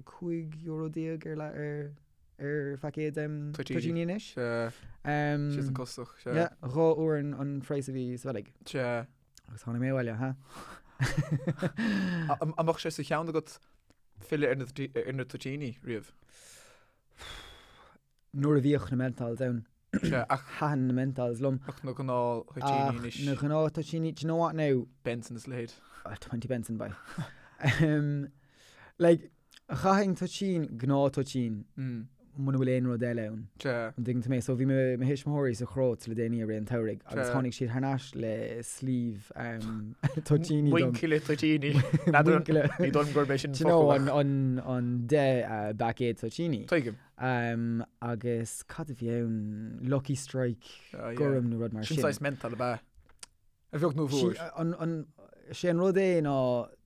€15 ar leath, ar, ar phaicéad toitíní anois. Sea. Sé san costach, sea. Yeah, 2 uair an phraghas a bhí sa Bheilg. Sea. Agus tháinig mé abhaile, ha? An mbeadh sé sa cheann agat filleadh ar na toitíní riamh? Nuair a bhíodh na menthols ann. Sea, ach. Thaitin na menthols liom. Ach na gnáth-thoitíní anois. Ach na gnáth-toitíní, do you know what now? Benson is a leithéid. 20 Benson, boy. Like, Chaithfinn toitín, gnáth-toitín, muna bhfuil aon rud eile ann. Sea. An dtuigeann tú mé? So bhí mo thuismitheoirí sa Chróit le déanaí i rith an tsamhraidh agus tháinig siad thar n-ais le sleeve toitíní dom. Muinchille toitíní. Muinchille. Ní dóigh liom gurb é sin an focal ach. An 10 bpaicéad toitíní. Tuigim. Agus cad a bhí ann? Lucky Strike gorm nó rud mar sin. Sin saghas menthol ab ea? A bheag nó a mhór. Sé an rud é ná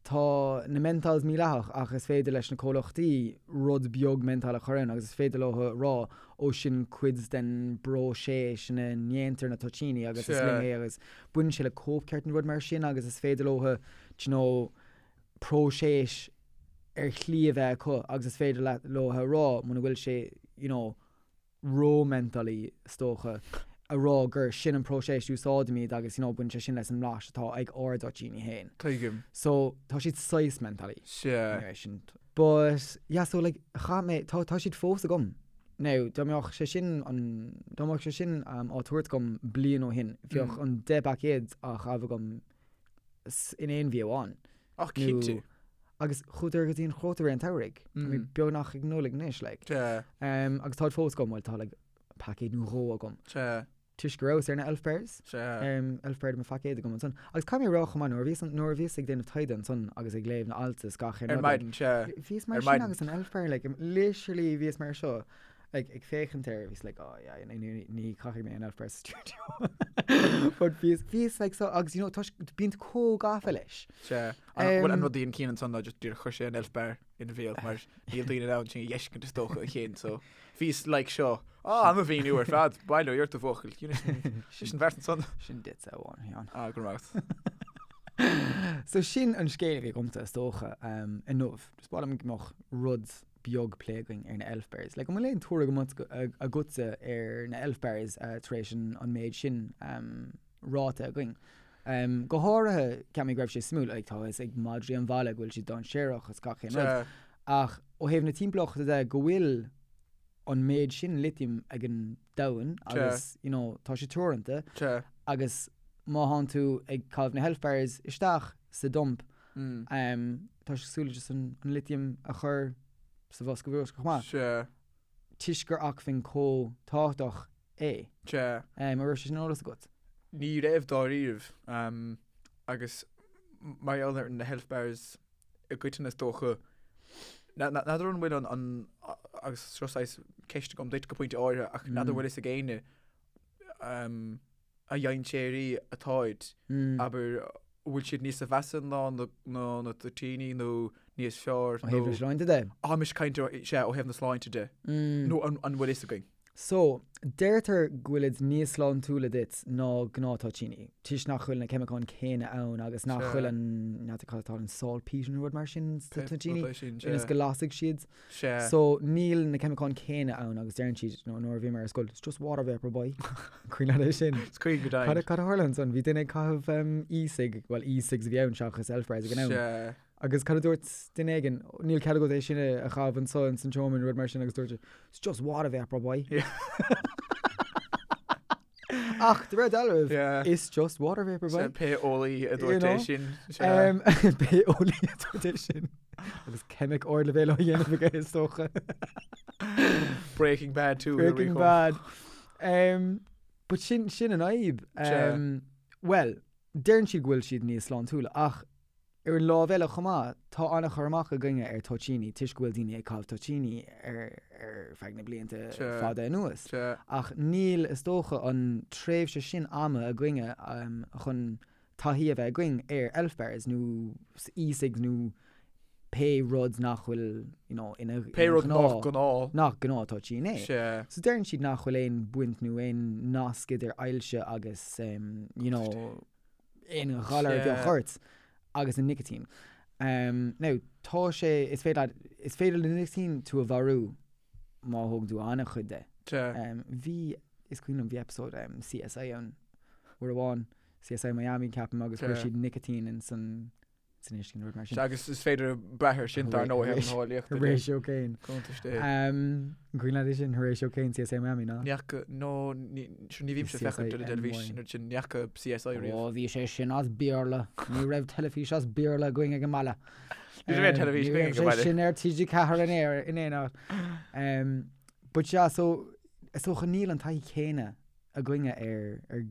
tá na menthols mídhleathach ach is féidir leis na comhlachtaí rud beag menthol a chur ann agus is féidir leo a rá ó sin cuid den bpróiseas ina ndéantar na toitíní agus is linn é agus baineann sé le cóipcheart nó rud mar sin agus is féidir leo do you know próiseas ar shlí a bheith acu agus is féidir leo a rá muna bhfuil sé you know ró-mentholy, is dócha, a rá gur sin an próiseas a úsáidimid agus you know baineann sé sin leis an mblas atá ag ár dtoitíní féin. Tuigim. So, tá siad saghas mentholy. Sea. Anyway, sin. But, yeah, so like, chaith mé, tá, tá siad fós agam. Now, dá mbeadh sé sin an, dá mbeadh sé sin um, á tabhairt agam bliain ó shin, bheadh an 10 bpaicéad á chaitheamh agam in aon mhí amháin. Ach cinnte. Agus chuadar go dtí an Chróit i rith an tsamhraidh. Tá mé beagnach ag Nollaig anois, like. Sea. Agus táid fós agam, bhuel tá like paicéad nó dhó agam. Sea. Toisc go rabhas ar na Elf Bars. Sea. Elf Bar de mo phaicéad agam ansan. Agus caithfidh mé a rá chomh maith, nuair a bhíos, nuair a bhíos ag déanamh taighde ansan agus ag léamh na alt is gach aon rud. Ar maidin, sea. Bhíos mar sin agus an Elf Bar, like, literally bhíos mar seo. Like, ag féachaint air, bhíos like, oh yeah, ní, ní chaithfidh mé an Elf Bar sa stiúideo. But bhíos, bhíos like so, agus you know, toisc, bíonn tú chomh gafa leis. Sea. An, bhuel, an rud a dhein Cian ansan ná just díreach chuir sé an Elf Bar ina bhéal mar níl daoine in ann sin a dh'fheiscint is dócha a Chian, so bhíos like seo. Ah, an-mhíniú ar fad, bail ó Dhia ort a bhuachaill. Sin, sin bheart ansan. Sin duitse amháin, Sheáin. Ah, go raibh maith agat. So sin an scéal a bhí agamsa is dócha, um, inniu. Just ba mhaith liom go mbeadh rud beag plé againn ar na Elf Bars. Like, an bhfuil aon tuairim agatsa ar na Elf Bars tar éis an méid sin ráite againn? Go háirithe, ceap mé go raibh sé suimiúil, like, tá a fhios ag madraí an bhaile go bhfuil siad dainséarach is gach aon rud. Ach ó thaobh na timpeallachta de, go bhfuil an méid sin litiam ag an domhan agus, you know, tá sé teoranta agus má thánn tú ag caitheamh na hElf Bars isteach sa dump, Tá sé cosúil le just an litiam a chur sa bhosca bruscair chomh maith. Sea. Toisc gur acmhainn chomh tábhachtach é. Sea. An raibh sé sin ar eolas agat? Ní raibh dáiríribh. Agus mar gheall ar na health bars i gcoitinne is dócha, n'fheadar an bhfuil an, agus seo saghas ceist agam duit go pointe áirithe, ach n'fheadar an bhfuil fhios ag éinne, a dhainséaraí atáid, abair, an bhfuil siad níosa mheasa ná na toitíní nó níos fearr nó. Ó thaobh na sláinte de? Tá mise ag caint, sea, ó thaobh na sláinte de. Nó an bhfuil fhios againn? So, deirtear go bhfuilid níos sláintiúla duit ná gnáth-toitíní, toisc nach bhfuil na ceimiceáin céanna ann agus nach bhfuil an, n'fheadar cad atá ann, saltpeter nó rud mar sin sna toitíní, ionas go lasfaidh siad. Sea. So, níl na ceimiceáin céanna ann agus deireann siad, you know, nuair a bhí mé ar scoil, it's just water vapour boy. Cuimhin leat é sin? Is cuimhin go deimhin. Cad a, cad a tharla ansan? Bhí duine ag caitheamh um, e-cig, well e-cigs a bhí ann seachas elf bars ag an am. Sea. Agus cad a dúirt duine éigin? Níl cead agat é sin a a chaitheamh anso ins an tseomra nó rud mar sin agus dúirt sé, it's just water vapour boy. Yeah. Ach, de réir dealraimh, Yeah. it's just water vapour boy. Sea, pé eolaí a You dúirt know? é sin. Sea. Um, pé eolaí a dúirt é sin. Agus ceimic ardleibhéil á dhéanamh aige is dócha. Breaking Bad 2. Breaking Bad. Um, but sin, sin an fhadhb. Um, well, deireann siad go bhfuil siad níos sláintiúla ach Ar an lámh eile chomh maith, tá an-chur amach againne ar toitíní toisc go bhfuil daoine ag caitheamh toitíní ar ar feadh na blianta fada anuas. Ach níl, is dócha, an tréimhse sin ama againne chun taithí a bheith againn ar elf bars nó e-cigs nó pé rud nach bhfuil you know, ina Pé rud nach gnáth. nach gnáth toitín é. So deireann siad nach bhfuil aon bhaint nó aon nasc idir ailse agus you know, aon ghalar a bheadh ort agus an nicitín. Now, tá sé, is féidir leat, is féidir le nicitín tú a mharú má thógann tú an-chuid de. Bhí, is cuimhin liom, bhí episode CSI ann uair amháin, CSI Miami ceapaim agus chuir siad nicitín in san san uisce nó rud mar sin. Sea, agus is féidir brath air sin dar ndóigh ar an eolaíocht. Horatio Caine. Cuntais dé. An cuimhin leat é sin, Horatio Caine, CSI Miami, ná? Ní fhaca, no, ní, sure, ní bhímse ag féachaint ar an dteilifís an oiread sin, ní fhaca CSI riamh. Ó, bhí sé sin as Béarla. Ní raibh teilifís as Béarla againn ag an mbaile. Ní raibh aon teilifís againn ag an mbaile. Ní raibh sé sin ar TG4 in aon, in aon áit. But yeah, so, is dócha níl an taithí chéanna againne ar, ar,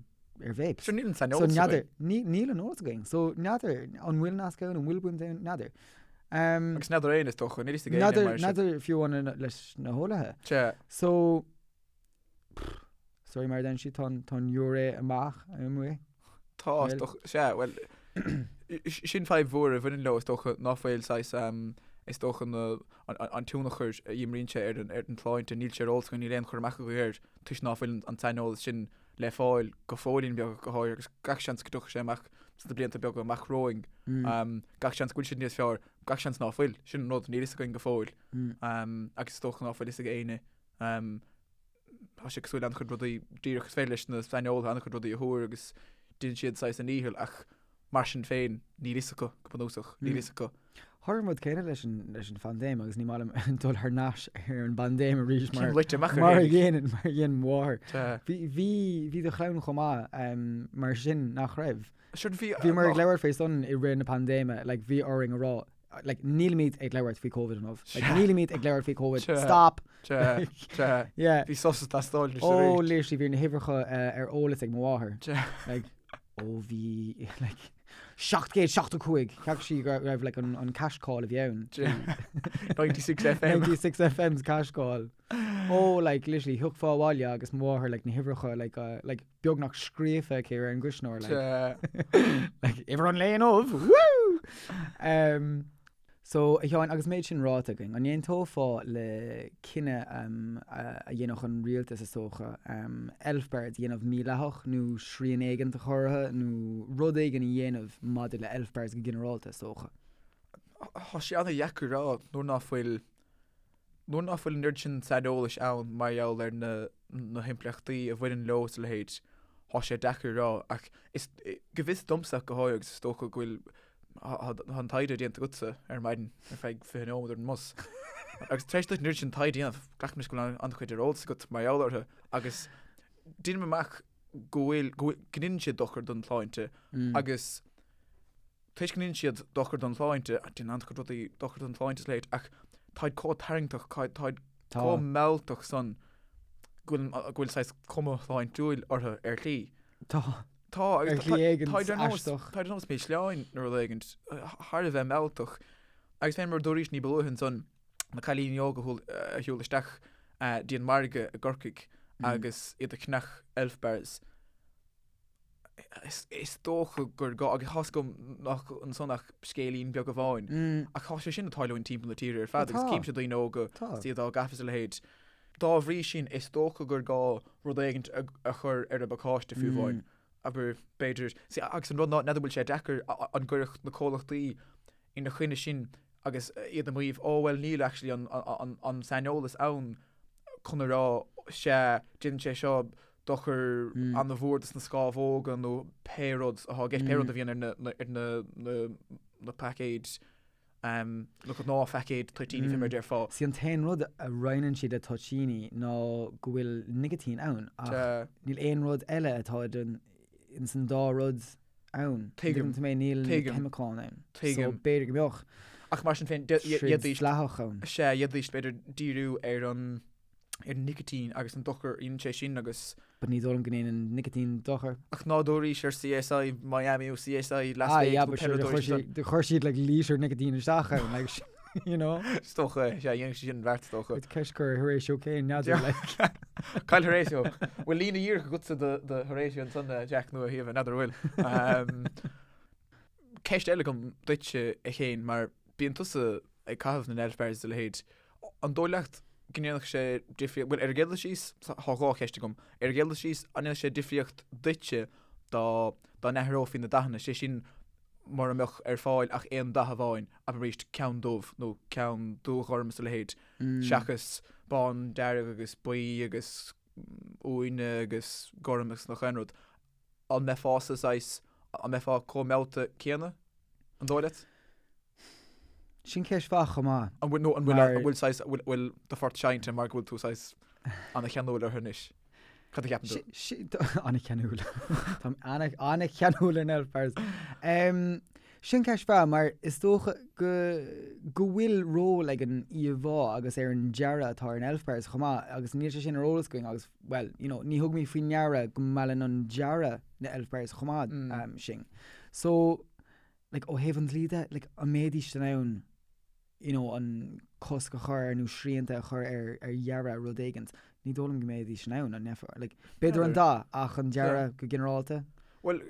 ar vapes. Sure, níl an saineolas so, n'fheadar, níl an eolas againn. So, n'fheadar, an bhfuil nasc ann, an bhfuil baint ann, n'fheadar. Um, Agus n'fheadar éinne is dócha, níl fhios ag éinne mar sin. N'fheadar fiú amháin leis na heolaithe. Sea. So, sorry mar a deireann siad, tá an, tá an giúiré amach amuigh. Tá, is dócha, sea, bhuel, sin fadhb mhór a bhaineann leo is dócha ná fuil saghas, is dócha na, an tionchar a imríonn sé ar an, ar an tsláinte, níl sé ar eolas againn, níl aon chur amach againn air toisc ná fuil an saineolas sin le fáil go fóillín beag go háirithe agus gach seans go dtiocfaidh sé amach sna blianta beaga amach romhainn. Gach seans go bhfuil siad níos fearr, gach seans ná fuil, sin an rud, níl fhios againn go fóill. Agus is dócha ná fuil fhios ag éinne. Tá sé cosúil le an-chuid rudaí, díreach is féidir leis na saineolaithe an-chuid rudaí a thuar agus déanann siad saghas a ndícheall ach mar sin féin níl fhios acu go bunúsach, níl fhios acu. Tharla an rud céanna leis an leis an phaindéim agus ní maith liom dul thar n-ais ar an bpaindéim arís mar Cén loite amach ar mar a dhéanann mar a dhéan mo mháthair. Sea. Bhí bhí bhí do chlann chomh maith mar sin nach raibh? Sure bhí Bhíomar ag labhairt faoi san i rith na paindéime like bhí orainn a rá like nílimid ag labhairt faoi Covid inniu. Like nílimid ag labhairt faoi Covid. Sea. Stop! Sea, sea. Yeah. Bhí sos ag teastáil anois Oh, arís. literally bhí na huimhreacha ar eolas ag mo mháthair. Sea. Like, oh bhí like 775 Cheap sí go raibh like an an cash call a bhí ann. 96 FM. 96 FM's cash call. Oh like literally thiocfá abhaile agus mo mháthair like na huimhreacha like uh, like beagnach scríofa aici ar an gcuisneoir like Sea. like uimhir an lae inniu woo! Um, so a Sheáin agus méid sin ráite againn, an aontófá le cinneadh um, a, a dhéanfadh an rialtas is dócha um, elf bars a dhéanamh mídhleathach nó srian éigin a chur orthu nó rud éigin a dhéanamh maidir le elf bars go ginearálta is dócha? Tá sé an-dheacair a rá nuair ná fuil Nuair ná fuil an oiread sin saineolais ann mar gheall ar na na himpleachtaí a bhaineann leo is a leithéid, tá sé deacair a rá. Ach is, go bhfios domsa ach go háirithe, agus is dócha go bhfuil, tá an taighde déanta agatsa ar maidin ar feadh 20 nóiméad ar an mbus. Agus tar éis duit an oiread sin taighde a dhéanamh, glacaim leis go bhfuil an-chuid ar eolas agat mar gheall orthu agus deinim amach go bhfuil, go bhfuil, go ndéanann siad dochar don tsláinte agus Toisc go ndéanann siad dochar don tsláinte, déanann an-chuid rudaí dochar don tsláinte is a leithéid, ach táid chomh tarraingteach, táid chomh mealltach san go bhfuil, go bhfuil saghas cuma shláintiúil orthu ar shlí. Tá. Tá, agus Ar shlí éigin táid ar nós, aisteach. táid ar nós milseáin nó rud éigin, thar a bheith mealltach. Agus fé mar a dúraís ní ba luaithe ansan, na cailíní óga a shiúil isteach dtí an margadh i gCorcaigh agus iad ag ceannach elf bars. Is dócha gur gá, agus tá's agam nach ansan ach scéilín beag amháin, ach tá sé sin ag tarlúint timpeall na tíre ar fad agus címse daoine óga is iad á gcaitheamh is a leithéid. Dá bhrí sin, is dócha gur gá rud éigint a chur ar an bpacáiste fiú amháin. Abair, b'fhéidir, agus an rud ná, n'fheadar an bhfuil sé deacair an gcuirfeadh na comhlachtaí ina choinne sin agus iad ag maíomh, oh well níl actually an, an, an saineolas ann chun a rá sea, déanann sé seo dochar an-mhór dos na scámhóga nó pé rud atá i gceist, pé rud a bhíonn ar na, na, ar na, na, na paicéid, na gnáthphaicéid toitíní fé mar a déarfá. Sí an t-aon rud a roinneann siad le toitíní ná go bhfuil nicitín ann ach níl aon rud eile atá idir ins an dá rud ann. Tuigim. Tuigeann tú mé, níl na Tuigim. ceimiceáin ann. Tuigim. So b'fhéidir go mbeadh Ach mar sin féin, troid d'fhéadfaidís, dleathach ann. sea, d'fhéadfaidís b'fhéidir díriú ar an. ar an nicitín agus an dochar a dhéanann sé sin agus. But ní dóigh liom go ndéanann nicitín dochar. Ach ná dúraís ar CSI Miami nó CSI Las Vegas nó pé rud dúraís ansan. Chuir siad like lítear nicitín isteach ann like you know. Is dócha é, sea, dhéanfadh sé sin an bheart is dócha. Is ceist gur Horatio Caine n'fheadar like. Cá bhfuil Horatio? Bhfuil líne dhíreach agatsa do Horatio ansan Jack nó a Shíomha, n'fheadar an bhfuil. Ceist eile agam duitse a Chéin mar bíonn tusa ag caitheamh na n-elf bars is a leithéid. An dóigh leat go ndéanfadh sé difríocht, bhuel ar an gcéad dul síos, tá dhá cheist agam, ar an gcéad dul síos, an ndéanfadh sé difríocht duitse dá dá n-athrófaí na dathanna, sé sin mura mbeadh ar fáil ach aon dath amháin, abair arís ceann dubh nó ceann dúghorm is a leithéid, seachas bán, dearg agus buí agus uaine agus gorm agus nach aon rud. An mbeifeása saghas, an mbeifeá chomh meallta céanna, an dóigh leat? Sin ceist mhaith chomh maith. An bhfuil, nó an bhfuil, an bhfuil saghas, an bhfuil, bhfuil do phort seinnte mar go bhfuil tú saghas ana-cheanúil orthu anois? Cad a cheapann tú? Ana-cheanúil. Táim ana-cheanúil ar na elf bars. Sin ceist mhaith mar is dócha go, go bhfuil ról ag an íomhá agus ar an dearadh atá ar an elf bars chomh maith agus níl sé sin ar eolas againn agus, bhuel, you know, ní thugaimid faoi ndeara go meallann an dearadh na elf bars chomh maith sinn. So, like, ó thaobh an dlí de, like, an mbeidís in ann, you know, an cosc a chur ar nó srianta a chur ar, ar dhearadh rud éigint, ní dóigh liom go mbeidís in ann, an mbeifeá, like, b'fhéidir an dath ach an dearadh go ginearálta. Bhuel,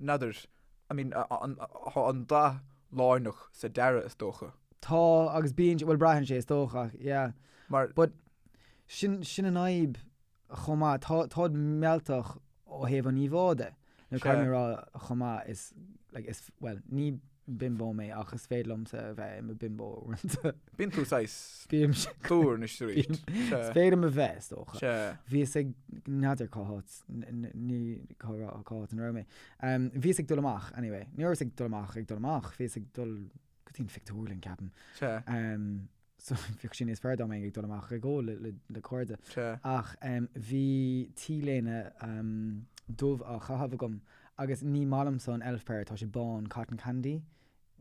n'fheadar, I mean, an, tá an dath lárnach sa dearadh is dócha. Tá, agus bíonn, bhuel braitheann sé is dócha, yeah. Mar. But, sin, sin an fhadhb chomh maith, tá, táid mealltach ó thaobh an íomhá de. Nó caithfidh mé a rá chomh maith, is, like, is, bhuel, ní bimbo mé ach is féidir liomsa a bheith i mo bimbo uaireanta. Bíonn tú saghas Bímse. dúr anois arís. Is féidir liom a bheith, is dócha. Sea. Bhíos ag, n'fheadar cá háit, ní, cá cá háit ina raibh mé. Bhíos ag dul amach, anyway. Ní rabhas ag dul amach ag dul amach, bhíos ag dul go dtí an phictiúrlann, ceapaim. Sea. So bheadh sé níos fearr dá mbeinn ag dul amach ag ól le cairde. Ach bhí t-léine dubh á chaitheamh agam agus ní maith liomsa an elf bar, tá sé bán, cotton candy.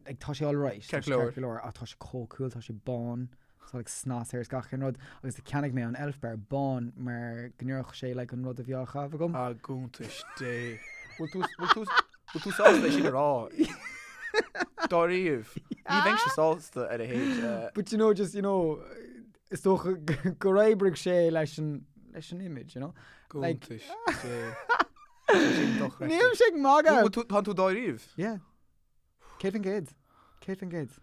Like, tá sé alright, tá sé ceart go leor, ach tá sé chomh cool, tá sé bán, tá like snas air is gach aon rud agus cheannaigh mé an elf bar bán mar go n-oirfeadh sé like an rud a bhí á chaitheamh agam. A gcuntais Dé. Bhfuil tú, bhfuil tú, Bhfuil tú sásta é sin a rá? Dáiríre. Ní bheinnse sásta ar a leithéid. But you know, just, you know, is dócha gur oibrigh sé leis an, leis an image, you know? Gcuntais Dé. Sin dochreidte. Nílimse ag magadh! Bhfuil tú, tá tú dáiríre? Yeah. 100%. 100%.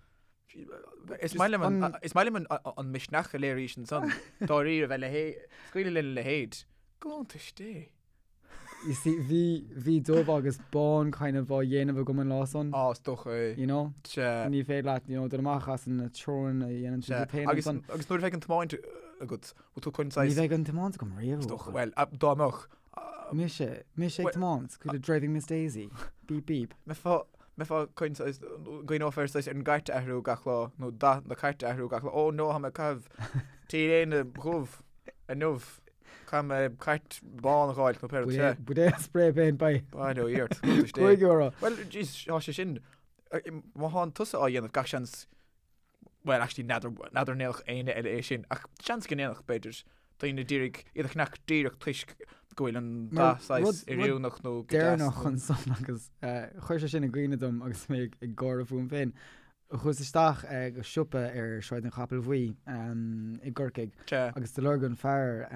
Is maith liom an, is maith liom an, an misneach a léirís ansan. Dáiríre bheith le hé, scaoileadh lena leithéid. Gcuntais Dé. You see, bhí, bhí dubh agus bán kind of á dhéanamh agam an lá san. Á, is dócha é. You know? Sea. Ní féidir leat, you know, dul amach as na treoranna a dhéanann tú duit féin Agus, ansan. agus nuair a bheidh an tiomáint agat, bhfuil tú chun saghas. Ní bheidh an tiomáint agam riamh. Is dócha, bhuel, dá mbeadh. Mise, mise ag tiomáint, cosúil le Driving Miss Daisy. Beep beep. Mbeifeá, mbeifeá chun saghas, gcuimhneofá ar saghas ar an gcairt a athrú gach lá, nó dath na cairte a athrú gach lá. Ó no, tá mé ag caitheamh t-léine dhubh inniu. Caithfidh mé cairt bán a dh'fháil nó pé rud é. Buidéal spray paint by. Bail ó Dhia ort, cuntais Dé. €5. Bhuel, jeez, tá sé sin, má thánn tusa á dhéanamh, gach seans, bhuel, actually, n'fheadar, n'fheadar an ndéanfadh éinne eile é sin, ach seans go ndéanfadh, b'fhéidir, daoine d'iarraidh iad a cheannach díreach toisc go bhfuil an dath saghas oiriúnach nó go deas. Deireanach ansan agus chuir sé sin i gcuimhne dom agus mé ag gáire fúm féin. Chuas isteach go siopa ar Sráid an Chapaill Bhuí i gCorcaigh agus do lorg an fear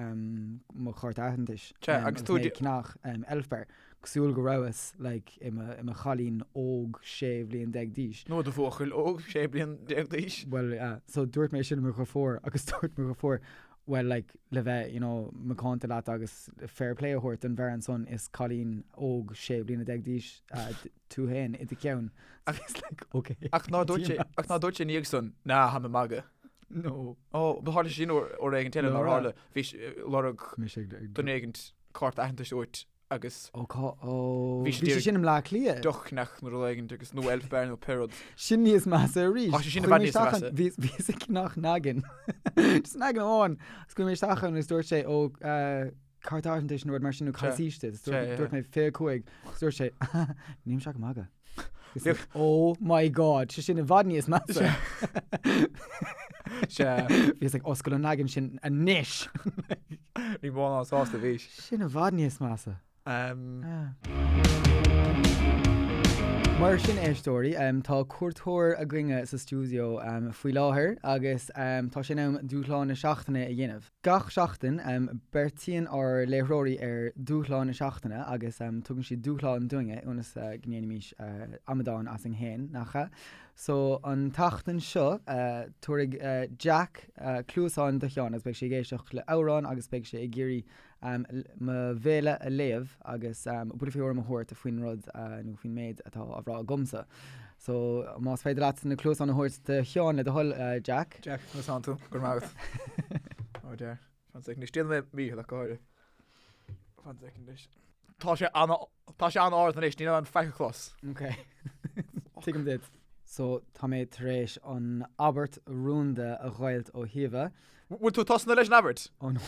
mo chárta aitheantais agus mé ag ceannach elf bar, cosúil go rabhas like i mo chailín óg 16 bhliain d'aois. Nó do bhuachaill óg 16 bliain d'aois. Bhuel yeah, so dúirt mé sin le mo dheirfiúr agus dúirt mo dheirfiúr bhuel like le bheith you know macánta leat agus fair play a thabhairt don bhfear ansan is cailín óg 16 bliana d'aois tú féin i do cheann. It's like, ok. Ach ná dúirt sé, ach ná dúirt sé ina dhiaidh san, ná, tha mi ag magadh. No. Ó, ba tharla sé sin uair uair éigint eile nár tharla. Bhí sé, lorg Mise ag, ag, duine éigint cárta aitheantais uait agus Ó, cá, ó, Bhí sé bhí sé sin i mBleá Cliath. deoch a cheannach nó rud éigint agus nó elf bar nó pé rud. Sin níos measa arís. Tá sé sin i bhfad níos measa. Bhí, bhíos ag ceannach naggin. Just naggin amháin. Agus chuaigh mé isteach ann agus dúirt sé, ó, eh, Cárta aitheantais nó rud mar sin nó cad is aois duit? Dúirt mé 25 agus dúirt sé Nílimse ag magadh. Oh my god, sé sin i bhfad níos measa. Sea. Bhíos ag oscail an leagan sin anois. Ní mó ná sásta a bhís. Sin i bhfad níos measa. Mar sin éisteoirí, tá cuairteoir againne sa stiúideo faoi láthair agus tá sé in am dúshlán na seachtaine a dhéanamh. Gach seachtain, beartaíonn ár láithreoirí ar dúshlán na seachtaine agus tugann siad dúshlán dúinne ionas go ndéanfaimis amadán asainn féin, nach ea? So, an tseachtain seo, tabharfaidh Jack cluasáin do Sheán agus beidh sé ag éisteacht le amhrán agus beidh sé ag iarraidh mo bhéal a léamh agus buille faoi thuairim a thabhairt faoin rud nó faoin méid atá á rá agamsa. So, más féidir leat na cluasáin a thabhairt do Sheán le do thoil, Jack. Jack, conas tánn tú? Go raibh maith agat. Oh dear. Fan second anois. Déanfaidh mé mícheal ach go háirithe. Fan second anois. Tá sé an tá sé an-ard anois, níl an faic a chlos. Ok. Tuigim duit. So, tá mé tar éis an abairt rúnda a dh'fháilt ó Shíomha. Bhfuil tú tosnaithe leis an abairt? Oh no.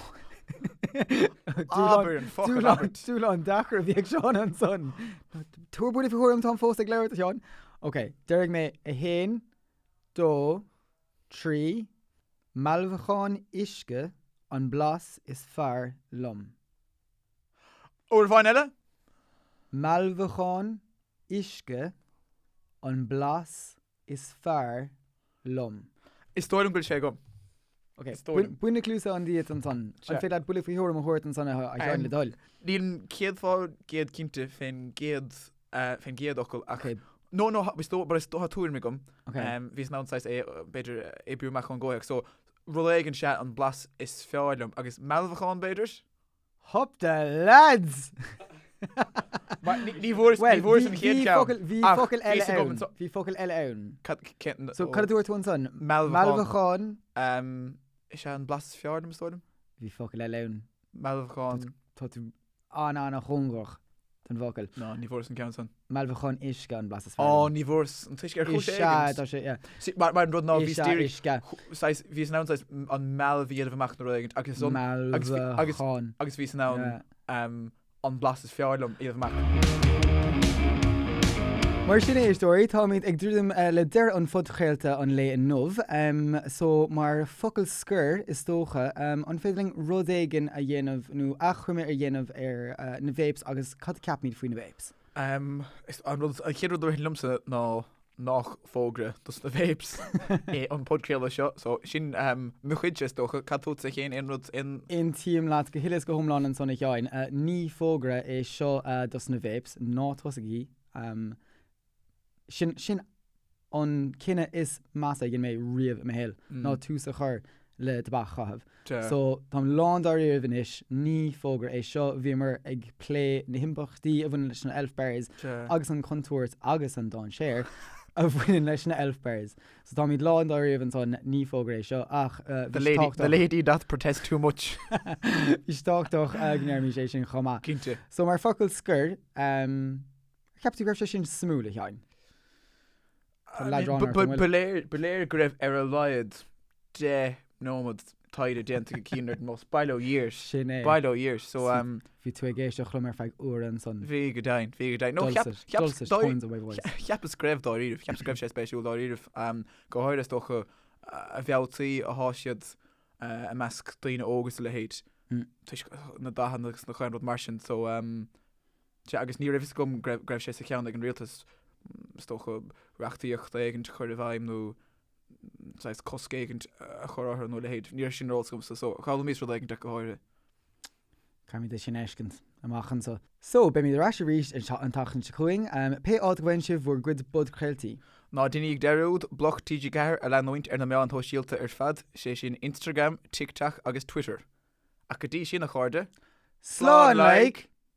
Abair an focal abairt. Dúshlán deacair a bhí ag Seán ansan. Tabhair buille faoi thuairim, táim fós ag labhairt, a Sheáin. Ok, déarfaidh mé 1, 2, 3, Mealbhacán uisce an blas is fearr liom. Uair amháin eile? Mealbhacán uisce an blas is fearr liom. Is dóigh liom go bhfuil sé agam. Ok, bain na cluasáin díot ansan. An féidir leat buille faoi thuairim a thabhairt ansan a Sheáin le do thoil? Nílim 100% cinnte fén gcéad fén gcéad fhocal ach No, no, is dóigh, but is dóigh tá tuairim agam. Bhíos in ann saghas é, b'fhéidir, oibriú amach ón gcomhthéacs. So, rud éigin sea an blas is fearr liom agus mealbhacán b'fhéidir? Hup the lads! Mar ní ní bhfuaireas ní bhfuaireas an chéad cheann. Bhí ach focal bhí eile fhios agam ann. anso- Bhí focal eile ann. Cad cén So cad a dúirt tú ansan? Mealbhacán. Mealbhacán. Um, is é an blas is fearr liom is dóigh liom? Bhí focal eile ann. Mealbhacán. Tá tú an-an-chóngarach don bhfocal. Ná, ní bhfuaireas an ceann san. Mealbhacán uisce an blas is fearr Á, liom. ní bhfuaireas an t-uisce ar chúis Is ea, éigin. tá sé, yeah. See, mar, mar an rud ná Is bhíos ea, díreach, uisce. saghas, bhíos in ann saghas an mealbh a dhéanamh amach nó rud éigin agus an, agus bhí, agus, Mealbhacán. agus bhíos in ann Yeah. um, an blas is fearr liom a dhéanamh amach. Mar sin éisteoirí, táimid ag druidim le deireadh an phodchraolta an lae inniu. So mar focal scoir, is dócha, an féidir linn rud éigin a dhéanamh nó achoimre a dhéanamh ar na vapes agus cad a ceapaimid faoi na vapes? An rud, an chéad rud a ritheann liomsa ná nach fógra dos na vapes é an podchraoladh seo, so sin mo chuidse is dócha. Cad fútsa féin, aon rud, aon. Aontaím leat go huile is go hiomlán ansan a Sheáin. Ní fógra é seo dos na vapes, ná tosaigí. Sin, sin an cinneadh is measa a dhein mé riamh i mo shaol, ná tús a chur le tobac a chaitheamh. So, táim lán dáiríribh anois, ní fógra é seo, bhíomar ag plé na himpleachtaí a bhaineann leis na Elf Bars agus an chontúirt agus an dainséar a bhaineann leis na Elf Bars. So táimid lán dáiríribh ansan, ní fógra é seo, ach bhí sé tábhachtach. The lady doth protest too much. Bhí sé tábhachtach go ndéarfaimis é sin chomh maith. Cinnte. So mar focal scoir, ar cheap tú go raibh sé sin suimiúil, a Sheáin? Tá leadrán ort, an bhfuil? Ba léir, ba léir go raibh ar a laghad 10 nóiméad taighde déanta ag Cian ar an mbus. Bail ó Dhia air. Sin é. Bail ó Dhia air. So, um, Bhí tú ag éisteacht liom ar feadh uaire ansan. Bhí go deimhin, bhí go deimhin. No, cheap, Dulcet, cheap, dulcet tones of my voice. cheapas go raibh dáiríribh, cheapas go raibh sé spéisiúil dáiríribh. Um, go háirithe is dócha a mhealltaí atá siad uh, i measc daoine óga is a leithéid. Mm. Toisc na dathanna agus na chaon rud mar sin. So, um, Sea, agus ní raibh fhios agam go raibh sé sa cheann ag an rialtas, is dócha, reachtaíocht éigint a chur i bhfeidhm nó saghas cosc éigint a chur orthu nó a leithéid. Ní raibh sin ar eolas agamsa, so d'fhoghlaimíos rud éigint ach go háirithe. Caithfimid é sin a fheiscint amach anso. So, beimid ar ais arís an tseachtain seo chugainn. Pé áit a bhfaigheann sibh bhur gcuid bodchraoltaí. Ná déanaíg dearúd Bloc TG4 a leanúint ar na meáin shóisialta ar fad, sé sin Instagram, TikTok agus Twitter. Ach go dtí sin, a chairde, Slán like!